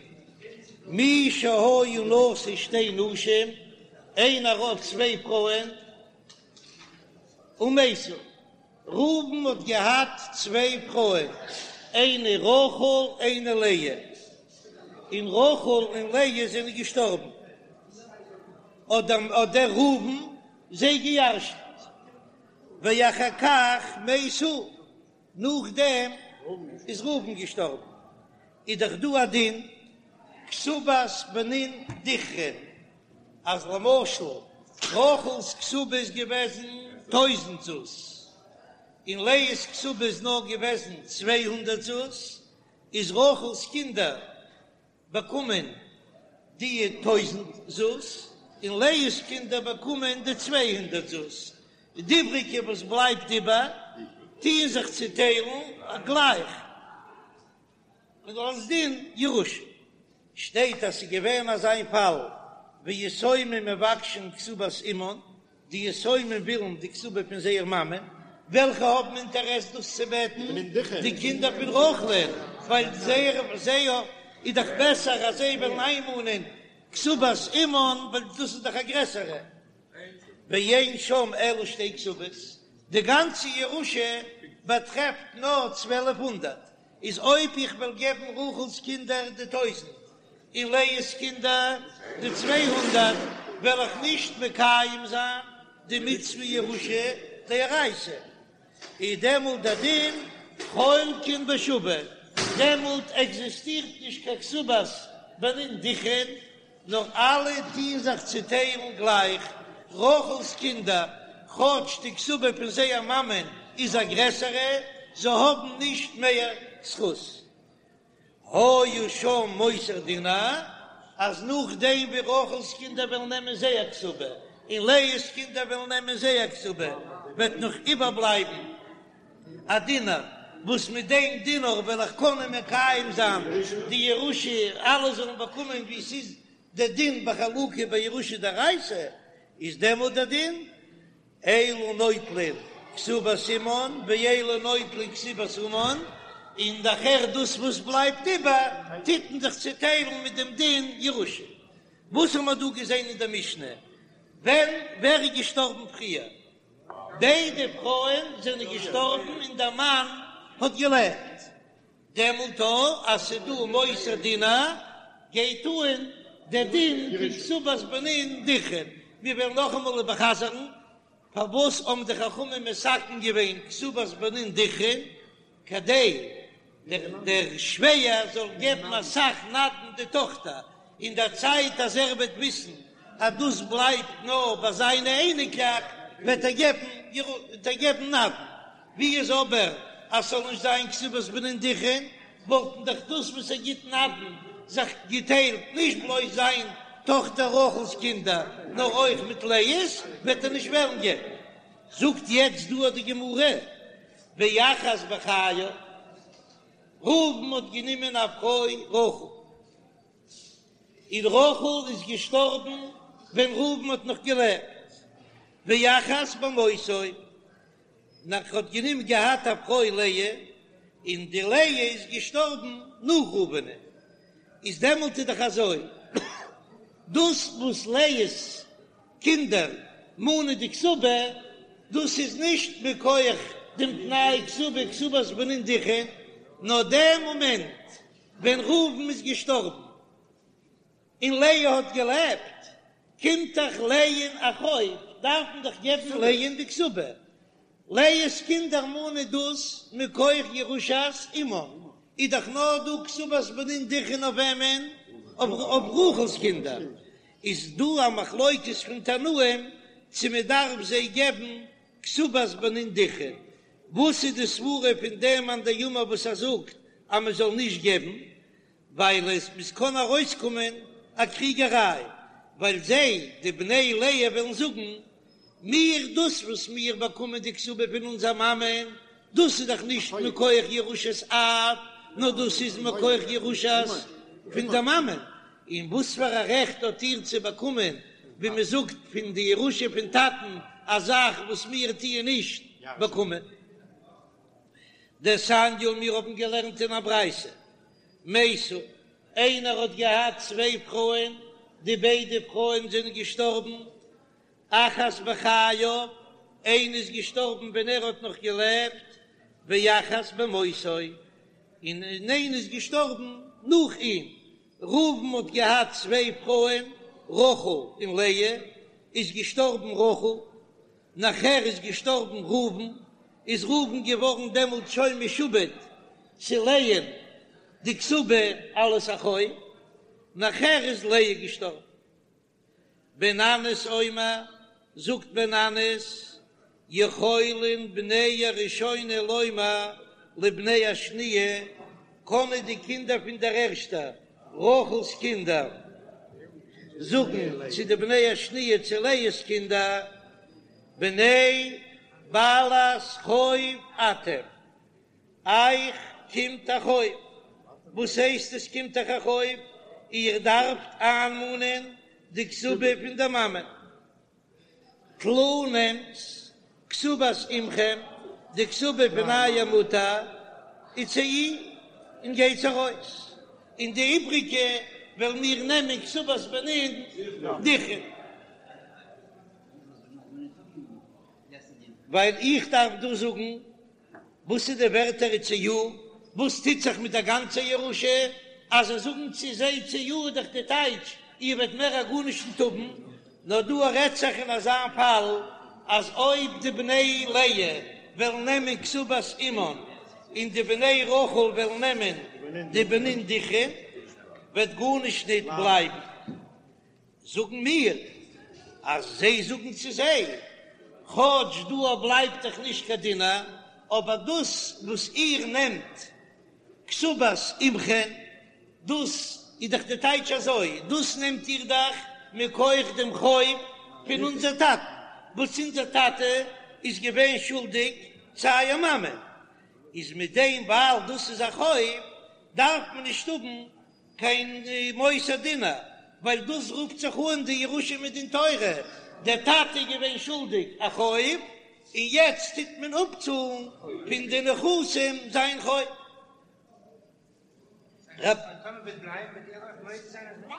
מי שהיה נשוי שתי נשים, איינער האט צוויי פרויען, ומתו, ראובן האט געהאט צוויי פרויען, איינע רחל איינע לאה, און רחל און לאה זענען געשטארבן, האט דער ראובן זיי געירשנט, ואחר כך מת הוא, נאכדעם איז ראובן געשטארבן, איז דאך דא א דין כתובת בנין דכרין, אז למשל רחל'ס כתובה איז געוועזן טויזנט זוז, און לאה'ס כתובה איז נאר געוועזן 200 זוז, איז רחל'ס קינדער באקומען די טויזנט זוז, און לאה'ס קינדער באקומען די 200 זוז, די איבריגע וואס בלייבט איבער טוען זיך צוטיילן גלייך. און אלס דין ירושה שטייט אז ס'איז געווען אזא איין פאל ויתומים מבקשין כתובת אמן, די יתומים ווילן די כתובה פון זייער מאמע, וועלכע האבן אינטערעס דאס צו בעטן? די קינדער פון רחל'ן, ווייל זייער זייער איז דאך בעסער אז זיי וועלן איינמאנען כתובת אמן, ווייל דאס איז דאך א גרעסערע. ואין שם אלא שתי כתובות, די גאנצע ירושה באטרעפט נאר 1200, איז אויב איך וועל געבן רחל'ס קינדער די טויזנט און לאה'ס קינדער די 200, וועל איך נישט מקיים זיין די מצוה ירושה דאורייתא, איז דעמאלט דער דין חולקין בשווה, דעמאלט עקזיסטירט נישט קיין כתובת בנין דכרין, נאר אלע טוען זיך צוטיילן גלייך, רחל'ס קינדער, כאטש די כתובה פון זייער מאמען איז א גרעסערע, זיי האבן נישט מער זכות. היה שם מותר דינר, אז נאכדעם ווי רחל'ס קינדער וועלן נעמען זייער כתובה, און לאה'ס קינדער וועלן נעמען זייער כתובה, וועט נאך איבערבלייבן א דינר, וואס מיט דעם דינר וועל איך קענען מקיים זיין די ירושה, אלע זאלן באקומען ווי ס'איז דער דין בחלוקה בירושה דאורייתא, איז דעמאלט דער דין, אלו נוטלין כתובת אמן ואלו נוטלין כתובת אמן, און נאכהער דאס וואס בלייבט איבער טוט מען זיך צוטיילן מיט דעם דין ירושה. וואס האבן מיר דא געזען אין דער משנה? ווען ווער איז געשטארבן פריער? ביידע פרויען זענען געשטארבן און דער מאן האט געלעבט, דעמאלט אז ס'איז דא מותר דינר גייט אן דער דין פון כתובת בנין דכרין. מיר וועלן נאכאמאל איבערחזר'ן פארוואס האבן די חכמים מתקן געווען כתובת בנין דכרין, כדי דער שווער זאל געבן אסאך נדן די טאכטער, אין דער צייט אז ער וועט וויסן אז דאס בלייבט נאר ביי זיינע אייניקלעך, וועט ער געבן וועט ער געבן נדן. ווי איז אבער אז ס'זאל נישט זיין כתובת בנין דכרין, וואלטן דאך דאס וואס ער גיט נדן זיך געטיילט נישט בלויז זיין טאכטער רחל'ס קינדער, נאר אויך מיט לאה'ס, וועט ער נישט וועלן געבן. זאגט יעצט דא די גמרא, ואחת בחייו, ראובן האט גענומען א פרוי רחל, און רחל איז געשטארבן ווען ראובן האט נאך געלעבט, ואחת במותו, און ער האט גענומען געהאט א פרוי לאה, און די לאה איז געשטארבן נאך ראובנ'ען, איז דעמאלט איז דאך אזוי, דאס וואס לאה'ס קינדער מאנען די כתובה, דאס איז נישט מכח דעם תנאי כתובה כתובת בנין דכרין, נאר דעם מאמענט ווען ראובן איז געשטארבן און לאה האט געלעבט, קומט דאך לאה'ן א חוב, דארף מען דאך געבן לאה'ן די כתובה, לאה'ס קינדער מאנען דאס מכח ירושת אמן, איז דאך נאר דא כתובת בנין דכרין אויף וועמען? אויף רחל'ס קינדער, איז דא א מחלוקת פון תנאים צו מען דארף זיי געבן כתובת בנין דכרין, וואס איז די סברה פון דעם מאן דאמר וואס ער זאגט אז מען זאל נישט געבן, ווייל עס עס קען ארויסקומען א קריגעריי, ווייל זיי, די בני לאה, וועלן זאגן, מיר, דאס וואס מיר באקומען די כתובה פון אונזער מאמען, דאס איז דאך נישט מכח ירושת אב, נאר דאס איז מכח ירושת. פון דער מאמען, און וואס פאר א רעכט האט איר צו באקומען, ווי מען זאגט, פון די ירושה פון טאטן, א זאך וואס מיר טוען נישט באקומען? דתניא, מיר האבן געלערנט אין א ברייתא, מתו, איינער האט געהאט צוויי פרויען, די ביידע פרויען זענען געשטארבן, אחת בחייו, איינע איז געשטארבן ווען ער האט נאך געלעבט, ואחת במותו, און איינע איז געשטארבן נאך אים. ראובן האט געהאט צוויי פרויען, רחל און לאה, איז געשטארבן רחל, נאכער איז געשטארבן ראובן, איז ראובן געווארן דעמאלט שוין משועבד צו לאה'ן די כתובה אלס א חוב, נאכער איז לאה געשטארבן. בן ננס אומר, זאגט בן ננס, יכולין בני הראשונה לומר לבני השניה, קענען די קינדער פון דער ערשטער, רחל'ס קינדער, זאגן צו די בני השניה צו לאה'ס קינדער, בני בעלת חוב אתם, אייך קומט א חוב. וואס הייסט עס קומט אייך א חוב? איר דארפט איינמאנען די כתובה פון דער מאמע. טלו נעמטס כתובת אמכם, די כתובה פון אייער מוטער, וצאו און גייטס ארויס, און די איבריגע וועלן מיר נעמען כתובת בנין דכרין. ווייל איך דארף דא זאגן וואס איז די ווערטער וצאו? וואס טוט זיך מיט דער גאנצער ירושה? אז זיי זאגן צו זיי צאו איז דאך די טייטש איר וועט מער א גארנישט נישט האבן, נאר דא רעדט זיך אין אזא פאל אז אויב די בני לאה וועלן נעמען כתובת אמן און די בני רחל וועלן נעמען די בנין דכרין וועט גארנישט ניט בלייבן. זאגן מיר אז זיי זאגן צו זיי, כאטש דא בלייבט דאך נישט קיין דינר, אבער דאס וואס איר נעמט כתובת אמכם, דאס איז דאך די טייטש אזוי, דאס נעמט איר דאך מכח דעם חוב פון אונזער טאטן, וואס אונזער טאטע איז געווען שולדיג צו אייער מאמע, איז מיט דעם ווייל דאס איז א חוב, דארף מען נישט האבן קיין מותר דינר, ווייל דאס רופט זיך אן די ירושה מדין תורה, דער טאטע איז געווען שולדיג א חוב, און יעצט טוט מען אפצאלן פון די נכסים זיין חוב.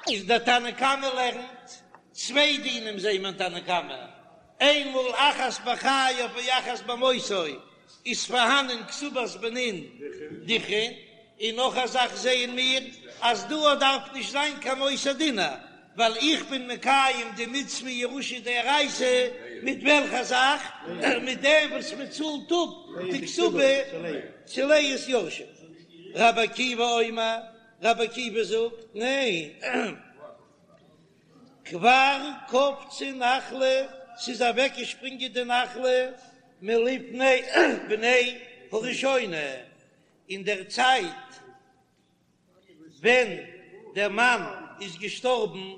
איז דער תנא קמא לערנט צוויי דינים זעהן מיר אין תנא קמא, איינמאל אחת בחייו ואחת במותו איז פארהאנען כתובת בנין דכרין, און נאך א זאך זעען מיר אז דא דארף נישט זיין קיין מותר דינר, ווייל איך בין מקיים די מצוה ירושה דאורייתא מיט וועלכע זאך? מיט דעם וואס מען צאלט אפ די כתובה צו לאה'ס יורשים. רבי עקיבא אומר, רבי עקיבא זאגט, ניין. כבר קפצה נחלה, ס'איז אוועקגעשפרינגען די נחלה מלפני בני הראשונה, אין דער צייט ווען דער מאן איז געשטארבן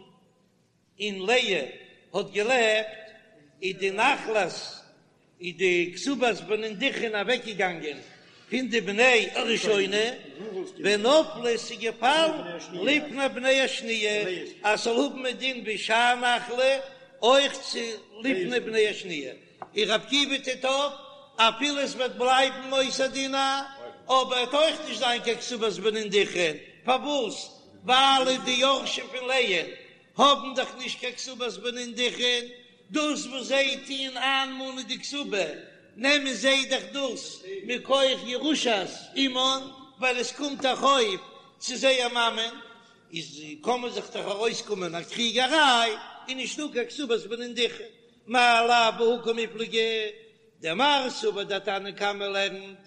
און לאה האט געלעבט, איז די נחלת איז די כתובת בנין דכרין אוועקגעגאנגען פון די בני הראשונה, ונפלה ס'איז געפאלן לפני בני השניה, אז ס'זאל האבן א דין ווי שאר נחלה, אויך צו לפני בני השניה, און רבי עקיבא טוט אויף, אפילו עס וועט בלייבן מותר דינר, אבער וועט אויך נישט זיין קיין כתובת בנין דכרין, פארוואס? ווייל די יורשים פון לאה האבן דאך נישט קיין כתובת בנין דכרין, דאס וואס זיי טוען איינמאנען די כתובה, נעמען זיי דאך דאס מכח ירושת אמן, ווייל עס קומט א חוב צו זייער מאמען, איז קען מען זיך דאך ארויסקומען א קריגעריי, און נישטא קיין כתובת בנין דכרין, מאי לאו בהא קמיפלגי, דמר סבר דער תנא קמא לערנט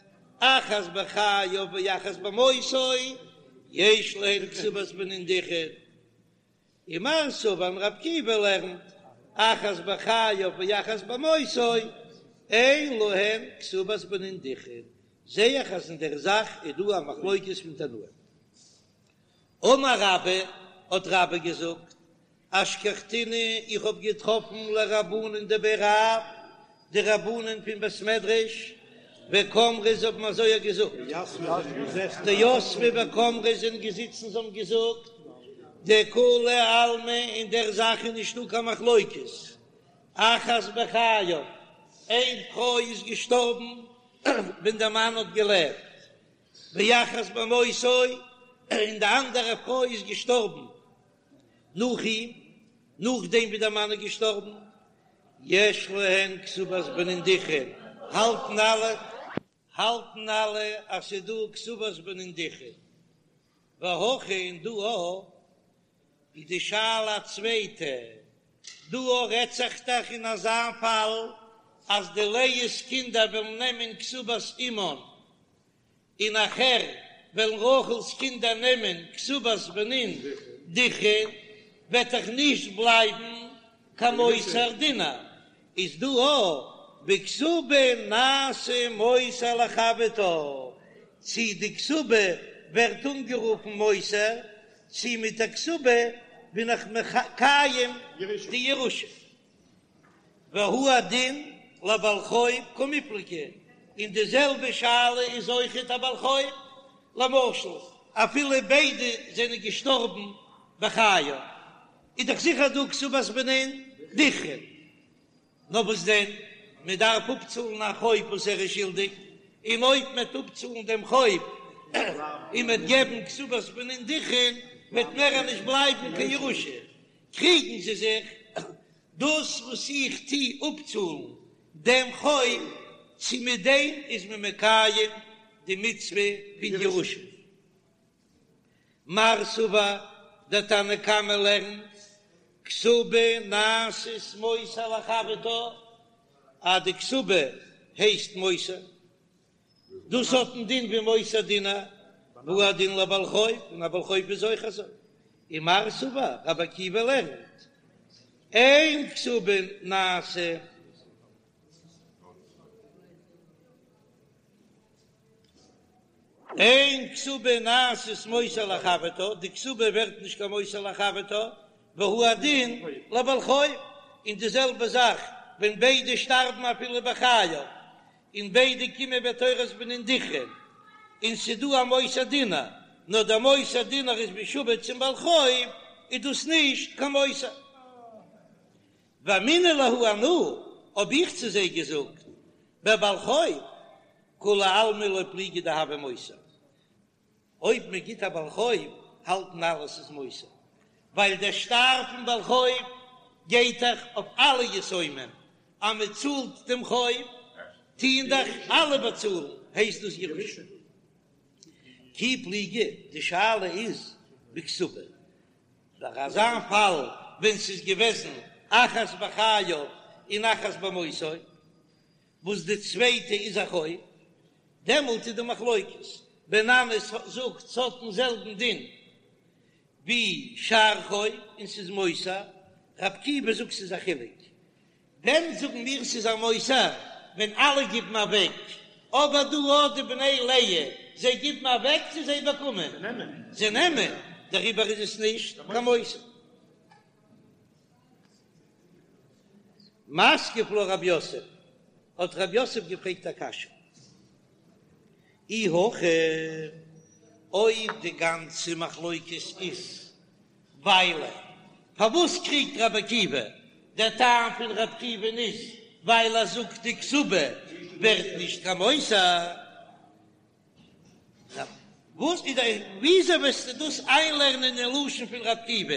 אחת בחייו ואחת במותו, יש להן כתובת בנין דכרין. ומר סבר און רבי עקיבא לערנט, אחת בחייו ואחת במותו, אין להן כתובת בנין דכרין, זע איך אז אין דער זאך איז דא א מחלוקת פון תנאים. אמר רבה, האט רבה געזאגט, אשכחתינהו, איך האב געטראפן לרבנן דבי רב, די רבנן פון בית מדרש, וקאמרי זיי האבן אזוי געזאגט, דיתבי וקאמרי זענען געזיצן זיי האבן געזאגט, דכולי עלמא אין דער זאך איז נישטא קיין מחלוקת, אחת בחייו, איין פרוי איז געשטארבן ווען דער מאן האט געלעבט, ואחת במותו, און די אנדערע פרוי איז געשטארבן נאך אים, נאכדעם ווי דער מאן איז געשטארבן, יש להן כתובת בנין דכרין, האלטן אלע, האלטן אלע אז ס'איז דא כתובת בנין דכרין, והכא און דא אויך איז די שאלה א צווייטע, דא אויך רעדט זיך דאך אין אזא פאל אז די לאה'ס קינדער וועלן נעמען כתובת אמן, און נאכער וועלן רחל'ס קינדער נעמען כתובת בנין דכרין, וועט דאך נישט בלייבן קיין מותר דינר, איז דא אויך בכתובה נעשה מותר לחברתה, צי די כתובה ווערט אנגערופן מותר, צי מיט די כתובה בין איך מקיים די ירושה. והוא הדין לבעל חוב קמיפלגי, און די זעלבע שאלה איז אויכעט א בעל חוב, למשל אפילו ביידע זענען געשטארבן בחייו, איז דאך זיכער דא כתובת בנין דכרין, נאר וואס דען, מען דארף אפצאלן א חוב וואס ער איז שולדיג, און אויב מען וועט אפצאלן דעם חוב און מען וועט געבן כתובת בנין דכרין, וועט מער נישט בלייבן קיין ירושה, קריגן זיי זיך, דאס וואס איך טו אפצאלן דעם חוב, צו מיט דעם איז מען מקיים די מצוה פון ירושה. מר סבר, דער תנא קמא לערנט, כתובה נעשית מותר לחברתה, אז די כתובה הייסט מותר, דאס האט א דין ווי מותר דינר, והוא הדין לבעל חוב, און א בעל חוב איז אויך אזוי. ומר סבר, רבי עקיבא לערנט, אין כתובה נעשה. אין כתובה נעשית מותר לחברתה, די כתובה ווערט נישט קיין מותר לחברתה, והוא הדין לבעל חוב, און די זעלבע זאך ווען ביידע שטארבן אפילו בחייו, און ביידע קומען בתורת בנין דכרין, און ס'דא א מותר דינר, נאר דער מותר דינר איז משועבד צום בעל חוב, איז דאס נישט קיין מותר. ואמינא להו אנא, האב איך צו זיי געזאגט, בבעל חוב, כולי עלמא לא פליגי דהוי מותר. אויב מען גיט א בעל חוב, האלטן אלע ס'איז מותר, ווייל דער שטר פון בעל חוב גייט דאך אויף אלע יתומים, אז מען צאלט דעם חוב, טוען דאך אלע באצאלן, הייסט דאס ירושה. כי פליגי, די שאלה איז בכתובה, ביי אזא פאל ווען ס'איז געוועזן אחת בחייו און אחת במותו, וואס די צווייטע איז א חוב, דעמאלט איז די מחלוקת, בן ננס זאגט ס'האט דעם זעלבן דין ווי שאר חוב און ס'איז מותר, ר' עקיבא זאגט ס'איז א חילוק, ווען זאגן מיר ס'איז א מותר? ווען אלע גיבן אוועק, אבער דא אט די בני לאה, זיי גיבן אוועק צו זיי באקומען? זיי נעמען, דעריבער איז עס נישט קיין מותר. מתקיף לה רב יוסף, האט רב יוסף געפרעגט א קשיא, אי הכי, אויב די גאנצע מחלוקת איז ווייל פארוואס קריגט רבי עקיבא? דער טעם פון רבי עקיבא'ן איז ווייל ער זאגט די כתובה ווערט נישט קיין מותר. וואס איז די וויאזוי וועסטו דאס איינלערנען אין לשון פון רבי עקיבא?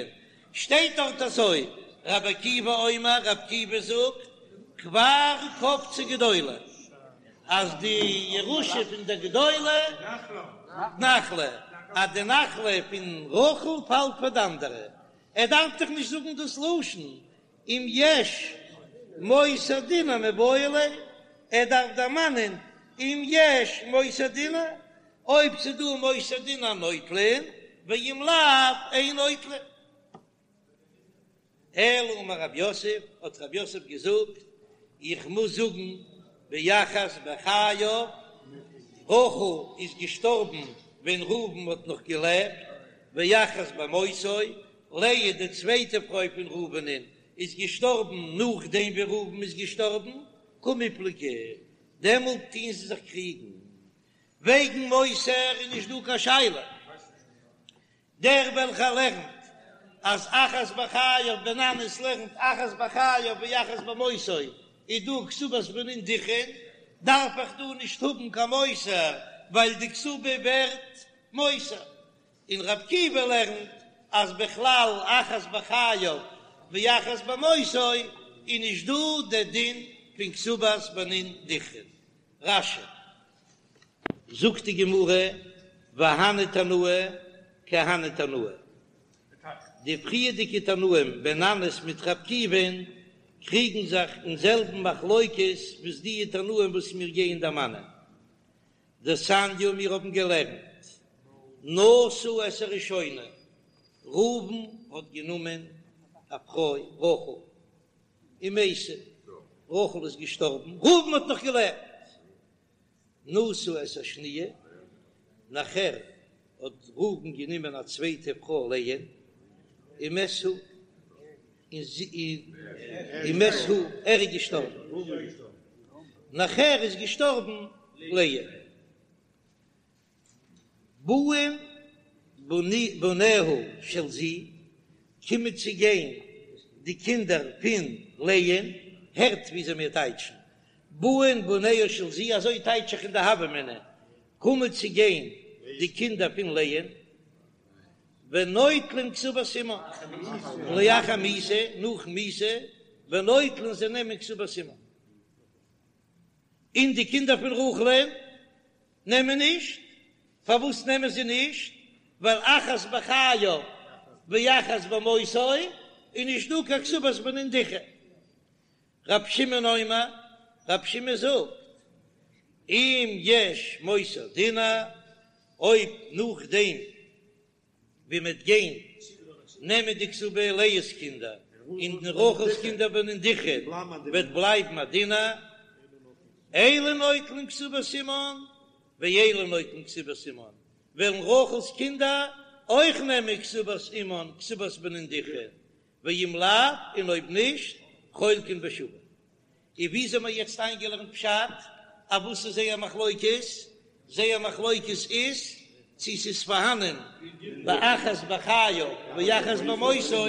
שטייט דארט אזוי, רבי עקיבא אומר, רבי עקיבא זאגט, כבר קפצה גדולה, אז די ירושה פון די גדולה נחלה, אז די נחלה פון רחל פאלט פאר די אנדערע, ער דארף דאך נישט זאגן דאס לשון, אם יש מותר דינר מיבעי ליה, ער דארף דערמאנען אם יש מותר דינר, אויב ס'דא מותר דינר נוטלין, ואם לאו אין נוטלין. אלא אמר רב יוסף, האט רב יוסף געזאגט, איך מוז זאגן באחת בחייו, רחל איז געשטארבן ווען ראובן האט נאך געלעבט, ואחת במותו, לאה די צווייטע פרוי פון ראובנ'ן איז געשטארבן נאכדעם ווי ראובן איז געשטארבן, קמיפלגי. דעמאלט טוען זיי זיך קריגן. וועגן מותר איז נישט דא קיין שאלה. דער וועלכער לערנט אז אחת בחייו בן ננס לערנט אחת בחייו ואחת במותו איז דא כתובת בנין דכרין, דארף איך דא נישט האבן קיין מותר ווייל די כתובה ווערט מותר. און ר' עקיבא לערנט אז בכלל אחת בחייו ואחת במותו איז נישט דא דער דין פון כתובת בנין דכרין. רש"י. זאגט די גמרא, והני תנאי כי הני תנאי, די פריערדיגע תנאים בן ננס מיט ר' עקיבא'ן קריגן זיך אין זעלבן מחלוקת וואס די תנאים וואס מיר גייען דערמאנען. דתניא מיר האבן געלערנט נשא את הראשונה, ראובן האט גענומען א פרוי רחל, ומתה, רחל איז געשטארבן, ראובן האט נאך געלעבט, נשא את השניה, נאכער האט ראובן גענומען א צווייטע פרוי לאה, ומת הוא, און זי, ומת הוא, ער איז געשטארבן, נאכער איז געשטארבן לאה. באין בניה של זו, קומען צו גיין די קינדער פון לאה'ן, הערט וויאזוי מיר טייטשן, באין בניה של זו, אזוי טייטש איך אין די הוה אמינא, קומען צו גיין די קינדער פון לאה'ן, ונוטלין כתובת אמן, לאחר מיתה, נאכן מיתה, ונוטלין זיי נעמען כתובת אמן, און די קינדער פון רחל'ן נעמען נישט, פארוואס נעמען זיי נישט? ווייל אחת בחייו ואחת במותו איז נישט דא קיין כתובת בנין דכרין. רב שמעון אומר, רב שמעון זאגט, אם יש מותר דינר, אויב נאכדעם ווי מ'וועט גיין נעמען די כתובה לאה'ס קינדער און רחל'ס קינדער בנין דכרין וועט בלייבן א דינר, אלו נוטלין כתובת אמן ואלו נוטלין כתובת אמן, וועלן רחל'ס קינדער אויך נעמען כתובת אמן כתובת בנין דכרין, ואם לאו, און אויב נישט, חולקין בשווה. און ווי אזוי האבן מיר יעצט איינגעלערנט פשט? אויף וואס איז זייער מחלוקת? זייער מחלוקת איז צו ס'איז פארהאנען באחת בחייו ואחת במותו,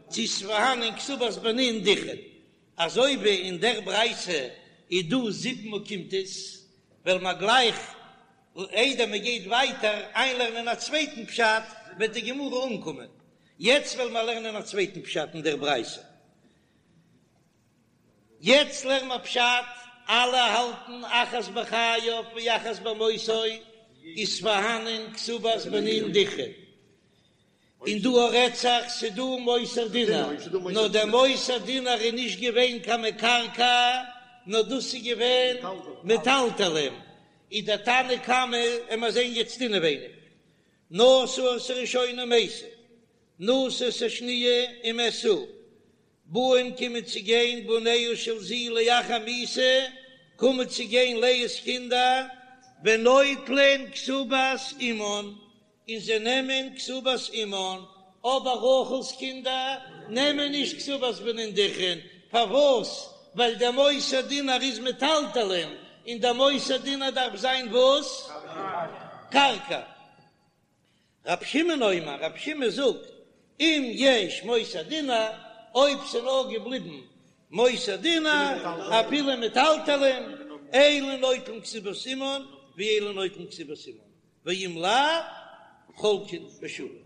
צו ס'איז פארהאנען כתובת בנין דכרין. אזוי ווי אין דער ברייתא איז דא זיבן אוקימתות, וועלן מיר גלייך איידער מען גייט ווייטער איינלערנען א צווייטן פשט, וועט די גמרא אנקומען. יעצט וועלן מיר לערנען א צווייטן פשט אין דער ברייתא. יעצט לערן מיר פשט, אלע האלטן אחת בחייו ואחת במותו איז פארהאנען כתובת בנין דכרין, און דא רעדט זיך ס'דא מותר דינר, נאר דער מותר דינר איז נישט געווען קיין מקרקע, נאר דאס איז געווען מטלטלין, איז דער תנא קמא, עמער זען יעצט אינעווייניג, נשא את הראשונה ומתה, נשא את השניה ומת הוא, באין קומען צו גיין בניה של זו לאחר מיתה, קומען צו גיין לאה'ס קינדער, ונוטלין כתובת אמן, און זיי נעמען כתובת אמן, אבער רחל'ס קינדער נעמען נישט כתובת בנין דכרין, פארוואס? ווייל דער מותר דינר איז מטלטלין, און דער מותר דינר דארף זיין וואס? קרקע. רב שמעון אומר, רב שמעון זאגט, אם יש מותר דינר, אויב ס'נאר געבליבן מותר דינר, אפילו מטלטלין, אלו נוטלין כתובת אמן, ואלו נוטלין כתובת אמן, ואם לאו, חולקין בשווה.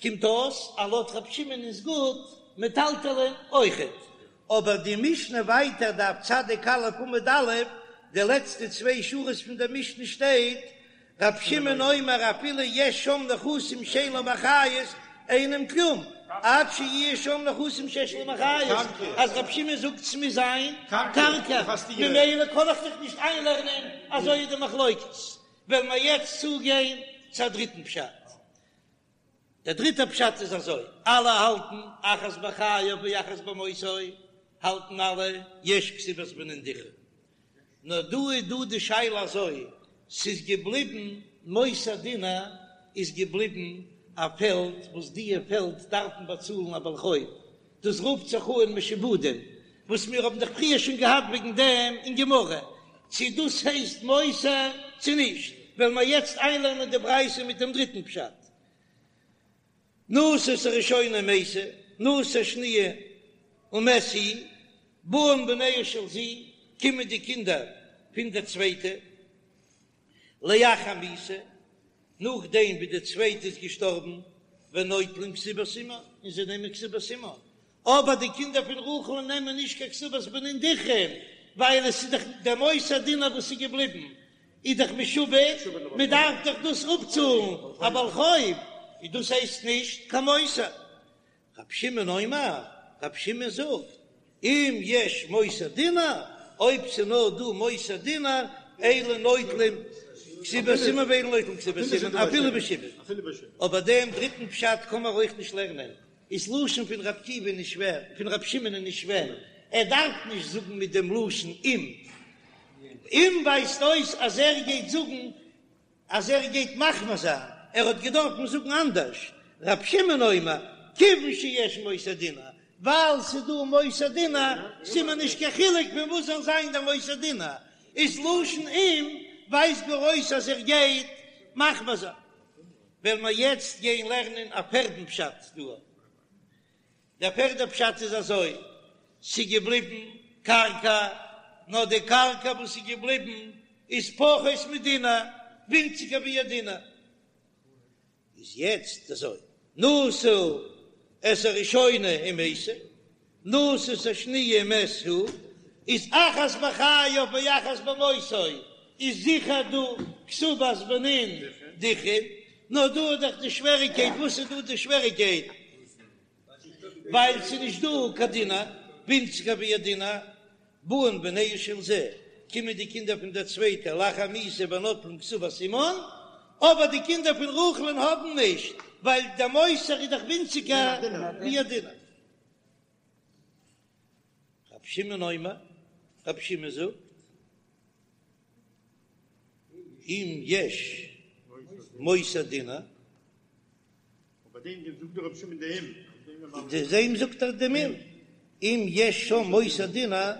קומט אויס אז לויט רב שמעון איז גוט מטלטלין אויכעט, אבער די משנה ווייטער דף צדיק א' עמוד א', די לעצטע צוויי שורות פון דער משנה שטייט, רב שמעון אומר אפילו יש שם נכסים שאין להם אחריות אינם כלום עד שיהיה שם נכסים שיש להם אחריות, אז רב שמעון זאגט ס'מוז זיין קרקע, ממילא קען איך זיך נישט איינלערנען אזוי איז די מחלוקת, וועלן מיר יעצט צוגיין צו א דריטן פשט. דער דריטער פשט איז אזוי, אלע האלטן אחת בחייו ואחת במותו, האלטן אלע יש כתובת בנין דכרין. נאר דא איז דא די שאלה אזוי, ס'איז געבליבן מותר דינר איז געבליבן א פעלד וואס דיע פעלד דארפן באצאלן א בעל חוב, דאס רופט זיך אן משועבדים. וואס מיר האבן דאך פריער שוין געהאט וועגן דעם אין גמרא, צו דאס הייסט מותר צו נישט, וועלן מיר יעצט איינלערנען די ברייתא מיט דעם דריטן פשט. נשא את הראשונה ומתה, נשא שניה ומת הוא, באין בניה של זו, קומען די קינדער פון דער צווייטע, לאחר מיתה, נאכדעם ווי די צווייטע איז געשטארבן, ונוטלין כתובת אמן, און זיי נעמען כתובת אמן, אבער די קינדער פון רחל נעמען נישט קיין כתובת בנין דכרין, ווייל עס איז דאך דער מותר דינר וואס איז געבליבן איז דאך משועבד, מען דארף דאך דאס אפצאלן א בעל חוב, און דאס הייסט נישט קיין מותר. רבי שמעון אומר, רבי שמעון זאגט, אם יש מותר דינר, אויב ס'איז נאר דא מותר דינר, אלו נוטלים כתובת אמן ואלו נוטלים כתובת אמן, אפילו בשעבוד. אבער דעם דריטן פשט קען מען אויך נישט לערנען, איז לשון פון רבי עקיבא נישט שווער, פון רבי שמעון איז נישט שווער, ער דארף נישט זאגן מיט דעם לשון אם. אם ווייזט אויס אז ער גייט זאגן אז ער גייט מחמיר זיין, ער האט געדארפן זאגן אנדערש, רבי שמעון אומר, כיוון שיש מותר דינר, ווייל ס'איז דא מותר דינר, ס'איז מיר נישט קיין חילוק פון וואס זאל זיין דער מותר דינר, איז לשון אם ווייזט גאר אויס אז ער גייט מחמיר זיין. וועלן מיר יעצט גיין לערנען א פערדן פשט דא. דער פערדע פשט איז אזוי, ס'איז געבליבן קרקע, נאר די קרקע וואס איז געבליבן איז פחות מדינר, ווינציגער ווי א דינר. איז יעצט אזוי, נשא את הראשונה ומתה, נשא את השניה ומת הוא, איז אחת בחייו ואחת במותו, איז זיכער דא כתובת בנין דכרין, נאר דא איז דאך די שוועריקייט, וואס איז דא די שוועריקייט? ווייל ס'איז נישט דא קיין דינר, ווינציגער ווי א דינר, באין בניה של זו, קומען די קינדער פון דער צווייטער לאחר מיתה ונוטלין כתובת אמן, אבער די קינדער פון רחל'ן האבן נישט, ווייל דער מותר איז דאך ווינציגער ווי א דינר. רב שמעון אומר, רב שמעון זאגט, אם יש מותר דינר, ביי דעם זאגט דער רבי שמעון די אם. די דעם זאגט ער דעם אם, אם יש שם מותר דינר.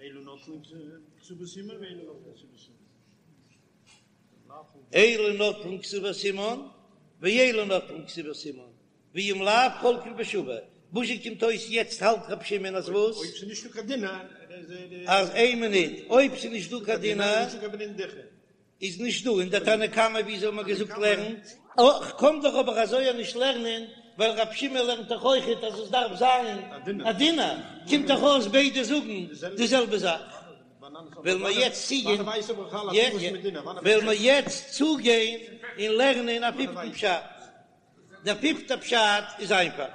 אלו נוטלין כתובת אמן ואלו נוטלין כתובת אמן. אלו נוטלין כתובת אמן ואלו נוטלין כתובת אמן, ואם לאו חולקין בשווה. וואס זשע קומט אויס יעצט האלט רבי שמעון אז וואס? אויב ס'איז נישטא קיין דינר אז איין מינוט, אויב ס'איז נישטא קיין דינר. איז נישט דא און דער תנא קמא ווי אזוי האט מען געזאגט לערנט. כ'קען דאך אבער אזוי נישט לערנען ווייל רב שמעון לערנט דאך אויכעט אז עס דארף זיין א דינר, קומט דאך אויס ביידע זאגן די זעלבע זאך. וועלן מיר יעצט צוגיין וועלן מיר יעצט צוגיין און לערנען א פיפטן פשט. דער פיפטער פשט איז איינפאך.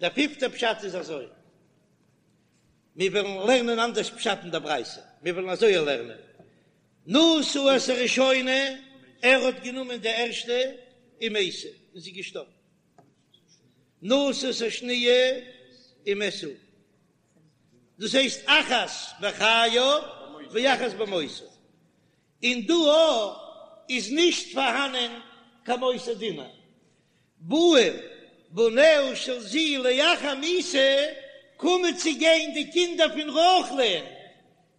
דער פיפטער פשט איז אזוי. מיר וועלן לערנען אנדערש פשט אין דער ברייתא, מיר וועלן אזוי לערנען, נשא את הראשונה, ער האט גענומען די ערשטע, ומתה, און זי איז געשטארבן, נשא את השניה ומת הוא, דאס הייסט אחת בחייו ואחת במותו, און דא איז נישט פארהאנען קיין מותר דינר, באין בניה של זו לאחר מיתה, קומען צו גיין די קינדער פון רחל'ן,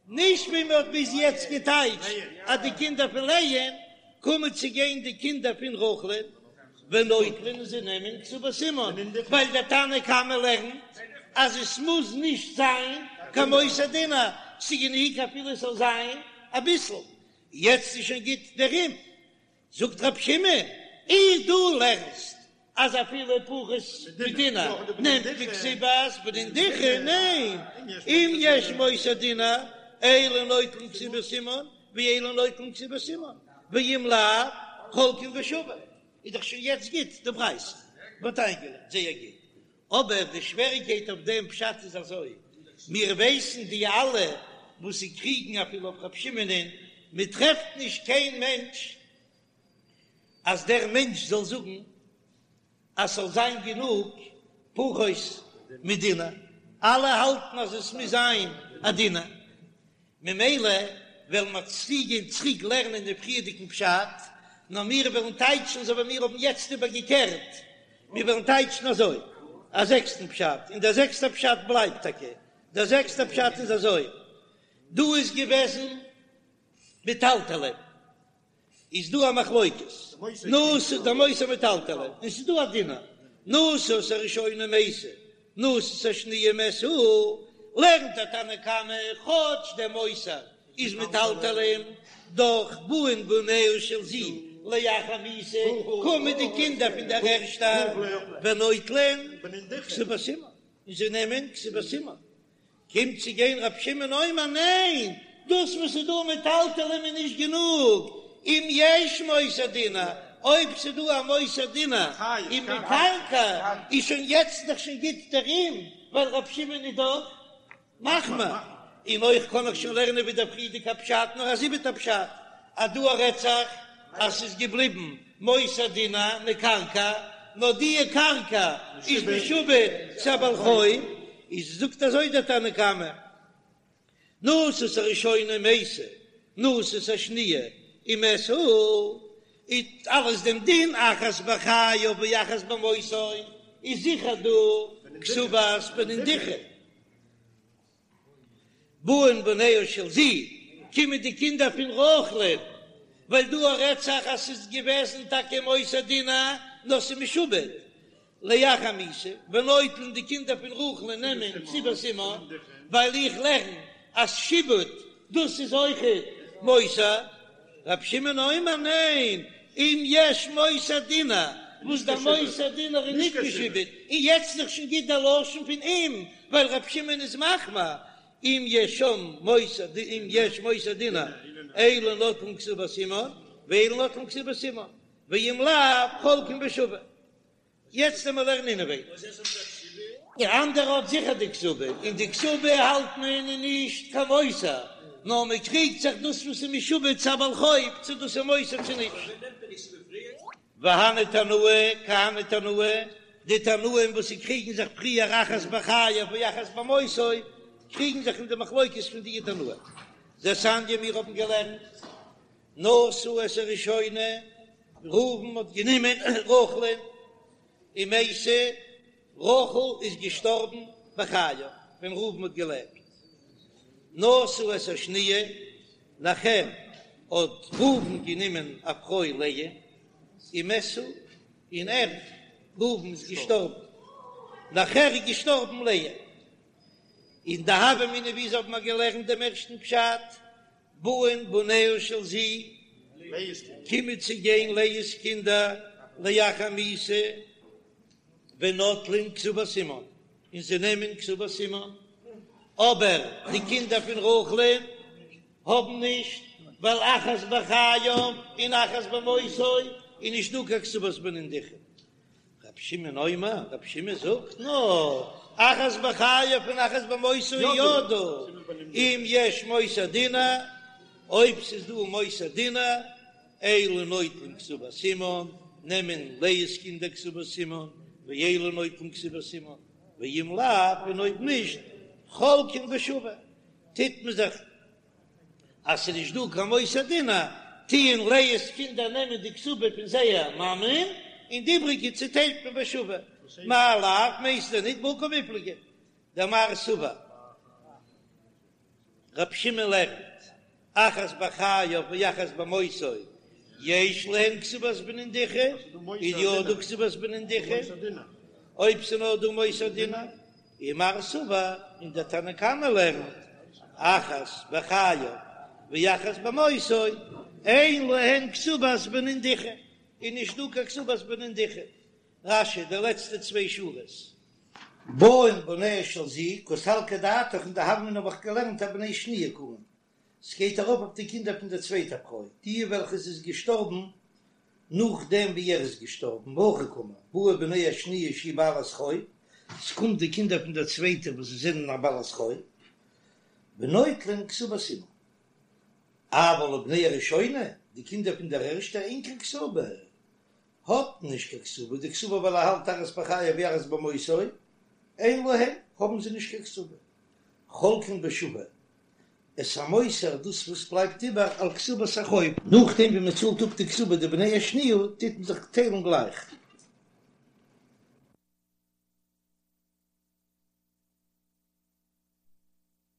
נישט ווי מען האט ביז יעצט געטייטשט אז די קינדער פון לאה'ן, קומען צו גיין די קינדער פון רחל'ן, ונוטלין און זיי נעמען כתובת אמן, ווייל דער תנא קמא לערנט אז עס מוז נישט זיין קיין מותר דינר, ס'גענוג אפילו עס זאל זיין אביסל, יעצט איז שוין גוט דער אם. זאגט רב שמעון, אי דו לערנסט אז אפילו פחות מדינר נעמט מען כתובת בנין דכרין, ניין, אם יש מותר דינר אלו נוטלין כתובת אמן ואלו נוטלין כתובת אמן, ואם לאו חולקין בשווה, איז דאך שוין יעצט גוט די ברייתא, מ'האט איינגעלערנט זייער גוט, אבער די שוועריקייט אויף דעם פשט איז אזוי, מיר ווייסן די אלע וואס זיי קריגן אפילו אויף רב שמעונ'ען, מען טרעפט נישט קיין מענטש אז דער מענטש זאל זאגן אז ס'זאל זיין גענוג פחות מדינר, אלע האלטן אז עס מוז זיין א דינר. ממילא וועלן מיר צוגיין צוריק לערנען דעם פריערדיגן פשט, נאר מיר וועלן טייטשן אזוי ווי מיר האבן יעצט איבערגעקערט, מיר וועלן טייטשן אזוי. א זעקסטן פשט, און דער זעקסטער פשט בלייבט טאקע. דער זעקסטער פשט איז אזוי, דא איז געוועזן מטלטלין, איז דא א מחלוקת, נשא דער מותר מטלטלין, און ס'איז דא א דינר, נשא את הראשונה ומתה, נשא את השניה ומת הוא, לערנט דער תנא קמא כאטש דער מותר איז מטלטלין, דאך באין בניה של זו לאחר מיתה, קומען די קינדער פון דער ערשטער ונוטלין כתובת אמן, און זיי נעמען כתובת אמן. קומט צו גיין רב שמעון אומר ניין, דאס וואס איז דא מטלטלין איז נישט גענוג, אם יש מותר דינר, אויב ס'איז דא א מותר דינר ומקרקעי איז שוין יעצט דאך שוין גוט דער אם, ווייל רב שמעון איז דאך מחמיר, און אויך קען איך שוין לערנען ווי דער פריערדיגע פשט, נאר א זיבעטע פשט, אז דא רעדט זיך אז ס'איז געבליבן מותר דינר מקרקעי, נאר די קרקע איז משועבד צו א בעל חוב, איז זאגט אזוי דער תנא קמא, נשא את הראשונה ומתה, נשא את השניה ומת הוא, איז אלעס דעם דין אחת בחייו ואחת במותו, איז זיכער דא כתובת בנין דכרין. באין בניה של זו, קומען די קינדער פון רחל'ן, ווייל דא רעדט זיך אז ס'איז געוועזן טאקע מותר דינר, נאר ס'איז משועבד לאחר מיתה, ונוטלין די קינדער פון רחל'ן נעמען כתובת אמן, ווייל איך לערן אז שעבוד דאס איז אויכעט מותר. רב שמעון אומר ניין, אם יש מותר דינר, וואס דער מותר דינר איז נישט משועבד, און יעצט איז דאך שוין גוט דער לשון פון אם, ווייל רב שמעון איז מחמיר, אם יש שם מותר אם יש מותר דינר, אלו נוטלין כתובת אמן, ואלו נוטלין כתובת אמן, ואם לאו חולקין בשווה. יעצט ווען מיר לערנען אינעווייניג. די אנדערע האט זיכער די כתובה, און די כתובה האלט מען איז נישט קיין מותר, נאר מען קריגט זיך דאס וואס איז משועבד צו א בעל חוב צו דאס איז מותר צו נישט. והני תנאי כי הני תנאי, די תנאים וואס זיי קריגן זיך פריער אחת בחייו ואחת במותו, קריגן זיך אין די מחלוקת פון די תנאים. דתניא מיר האבן געלערנט נשא את הראשונה, ראובן האט גענומען רחל'ן, ומתה, רחל איז געשטארבן בחייו ווען ראובן האט געלעבט. נשא את השניה, נאכער האט ראובן גענומען א פרוי לאה, ומת הוא, און ער, ראובן, איז געשטארבן, נאכער איז געשטארבן לאה. אין די הוה אמינא ווי אזוי האט מען געלערנט דעם ערשטן פשט, באין בניה של זו, קומען צו גיין לאה'ס קינדער לאחר מיתה ונוטלין כתובת אמן, און זיי נעמען כתובת אמן, אבער די קינדער פון רחל'ן האבן נישט, ווייל אחת בחייו און אחת במותו איז נישט דא קיין כתובת בנין דכרין. רבי שמעון אומר, רבי שמעון זאגט נאר, אחת בחייו און אחת במותו איז יא דא, אם יש מותר דינר, אויב ס'איז דא מותר דינר, אלו נוטלין כתובת אמן, נעמען לאה'ס קינדער כתובת אמן, ואלו נוטלין כתובת אמן, ואם לאו, און אויב נישט, חולקין בשווה, טוט מען זיך אז ס'איז נישט דא קיין מותר דינר, טוען לאה'ס קינדער נעמען די כתובה פון זייער מאמען, און די איבריגע צוטיילט מען בשווה. מאי לאו מיינסטו ניט בהא קמיפלגי דמר סבר רב שמעון לערנט אחת בחייו ואחת במותו יש להן כתובת בנין דכרין, איז יא דא כתובת בנין דכרין, אויב ס'איז נאר דא מותר דינר. ומר סבר, און דער תנא קמא לערנט, אחת בחייו ואחת במותו, אין להן כתובת בנין דכרין, איז נישט דא קיין כתובת בנין דכרין. רש"י, די לעצטע צוויי שורות. באין בניה של זו, קא סלקא דעתך אין די הוה אמינא האב איך געלערנט אבני שניה קאמר, ס'גייט ארויף אויף די קינדער פון דער צווייטער פרוי, די וועלכע איז געשטארבן נאכדעם ווי ער איז געשטארבן, והכי קאמר, באו בני השניה שהיא בעלת חוב, ס'קומט די קינדער פון דער צווייטער וואס זיי זענען א בעלת חוב, ונוטלין כתובת אמן, אבל לבני הראשונה, די קינדער פון דער ערשטער אין קיין כתובה, האט נישט קיין כתובה, דקסבר ווייל ער האלט אחת בחייו ואחת במותו, אין להם, האבן זיי נישט קיין כתובה, חולקין בשווה, את המותר דאס וואס בלייבט איבער על כתובת החוב. נאכדעם ווי מען צאלט אפ די כתובה די בני השניה טוט מען זיך טיילן גלייך.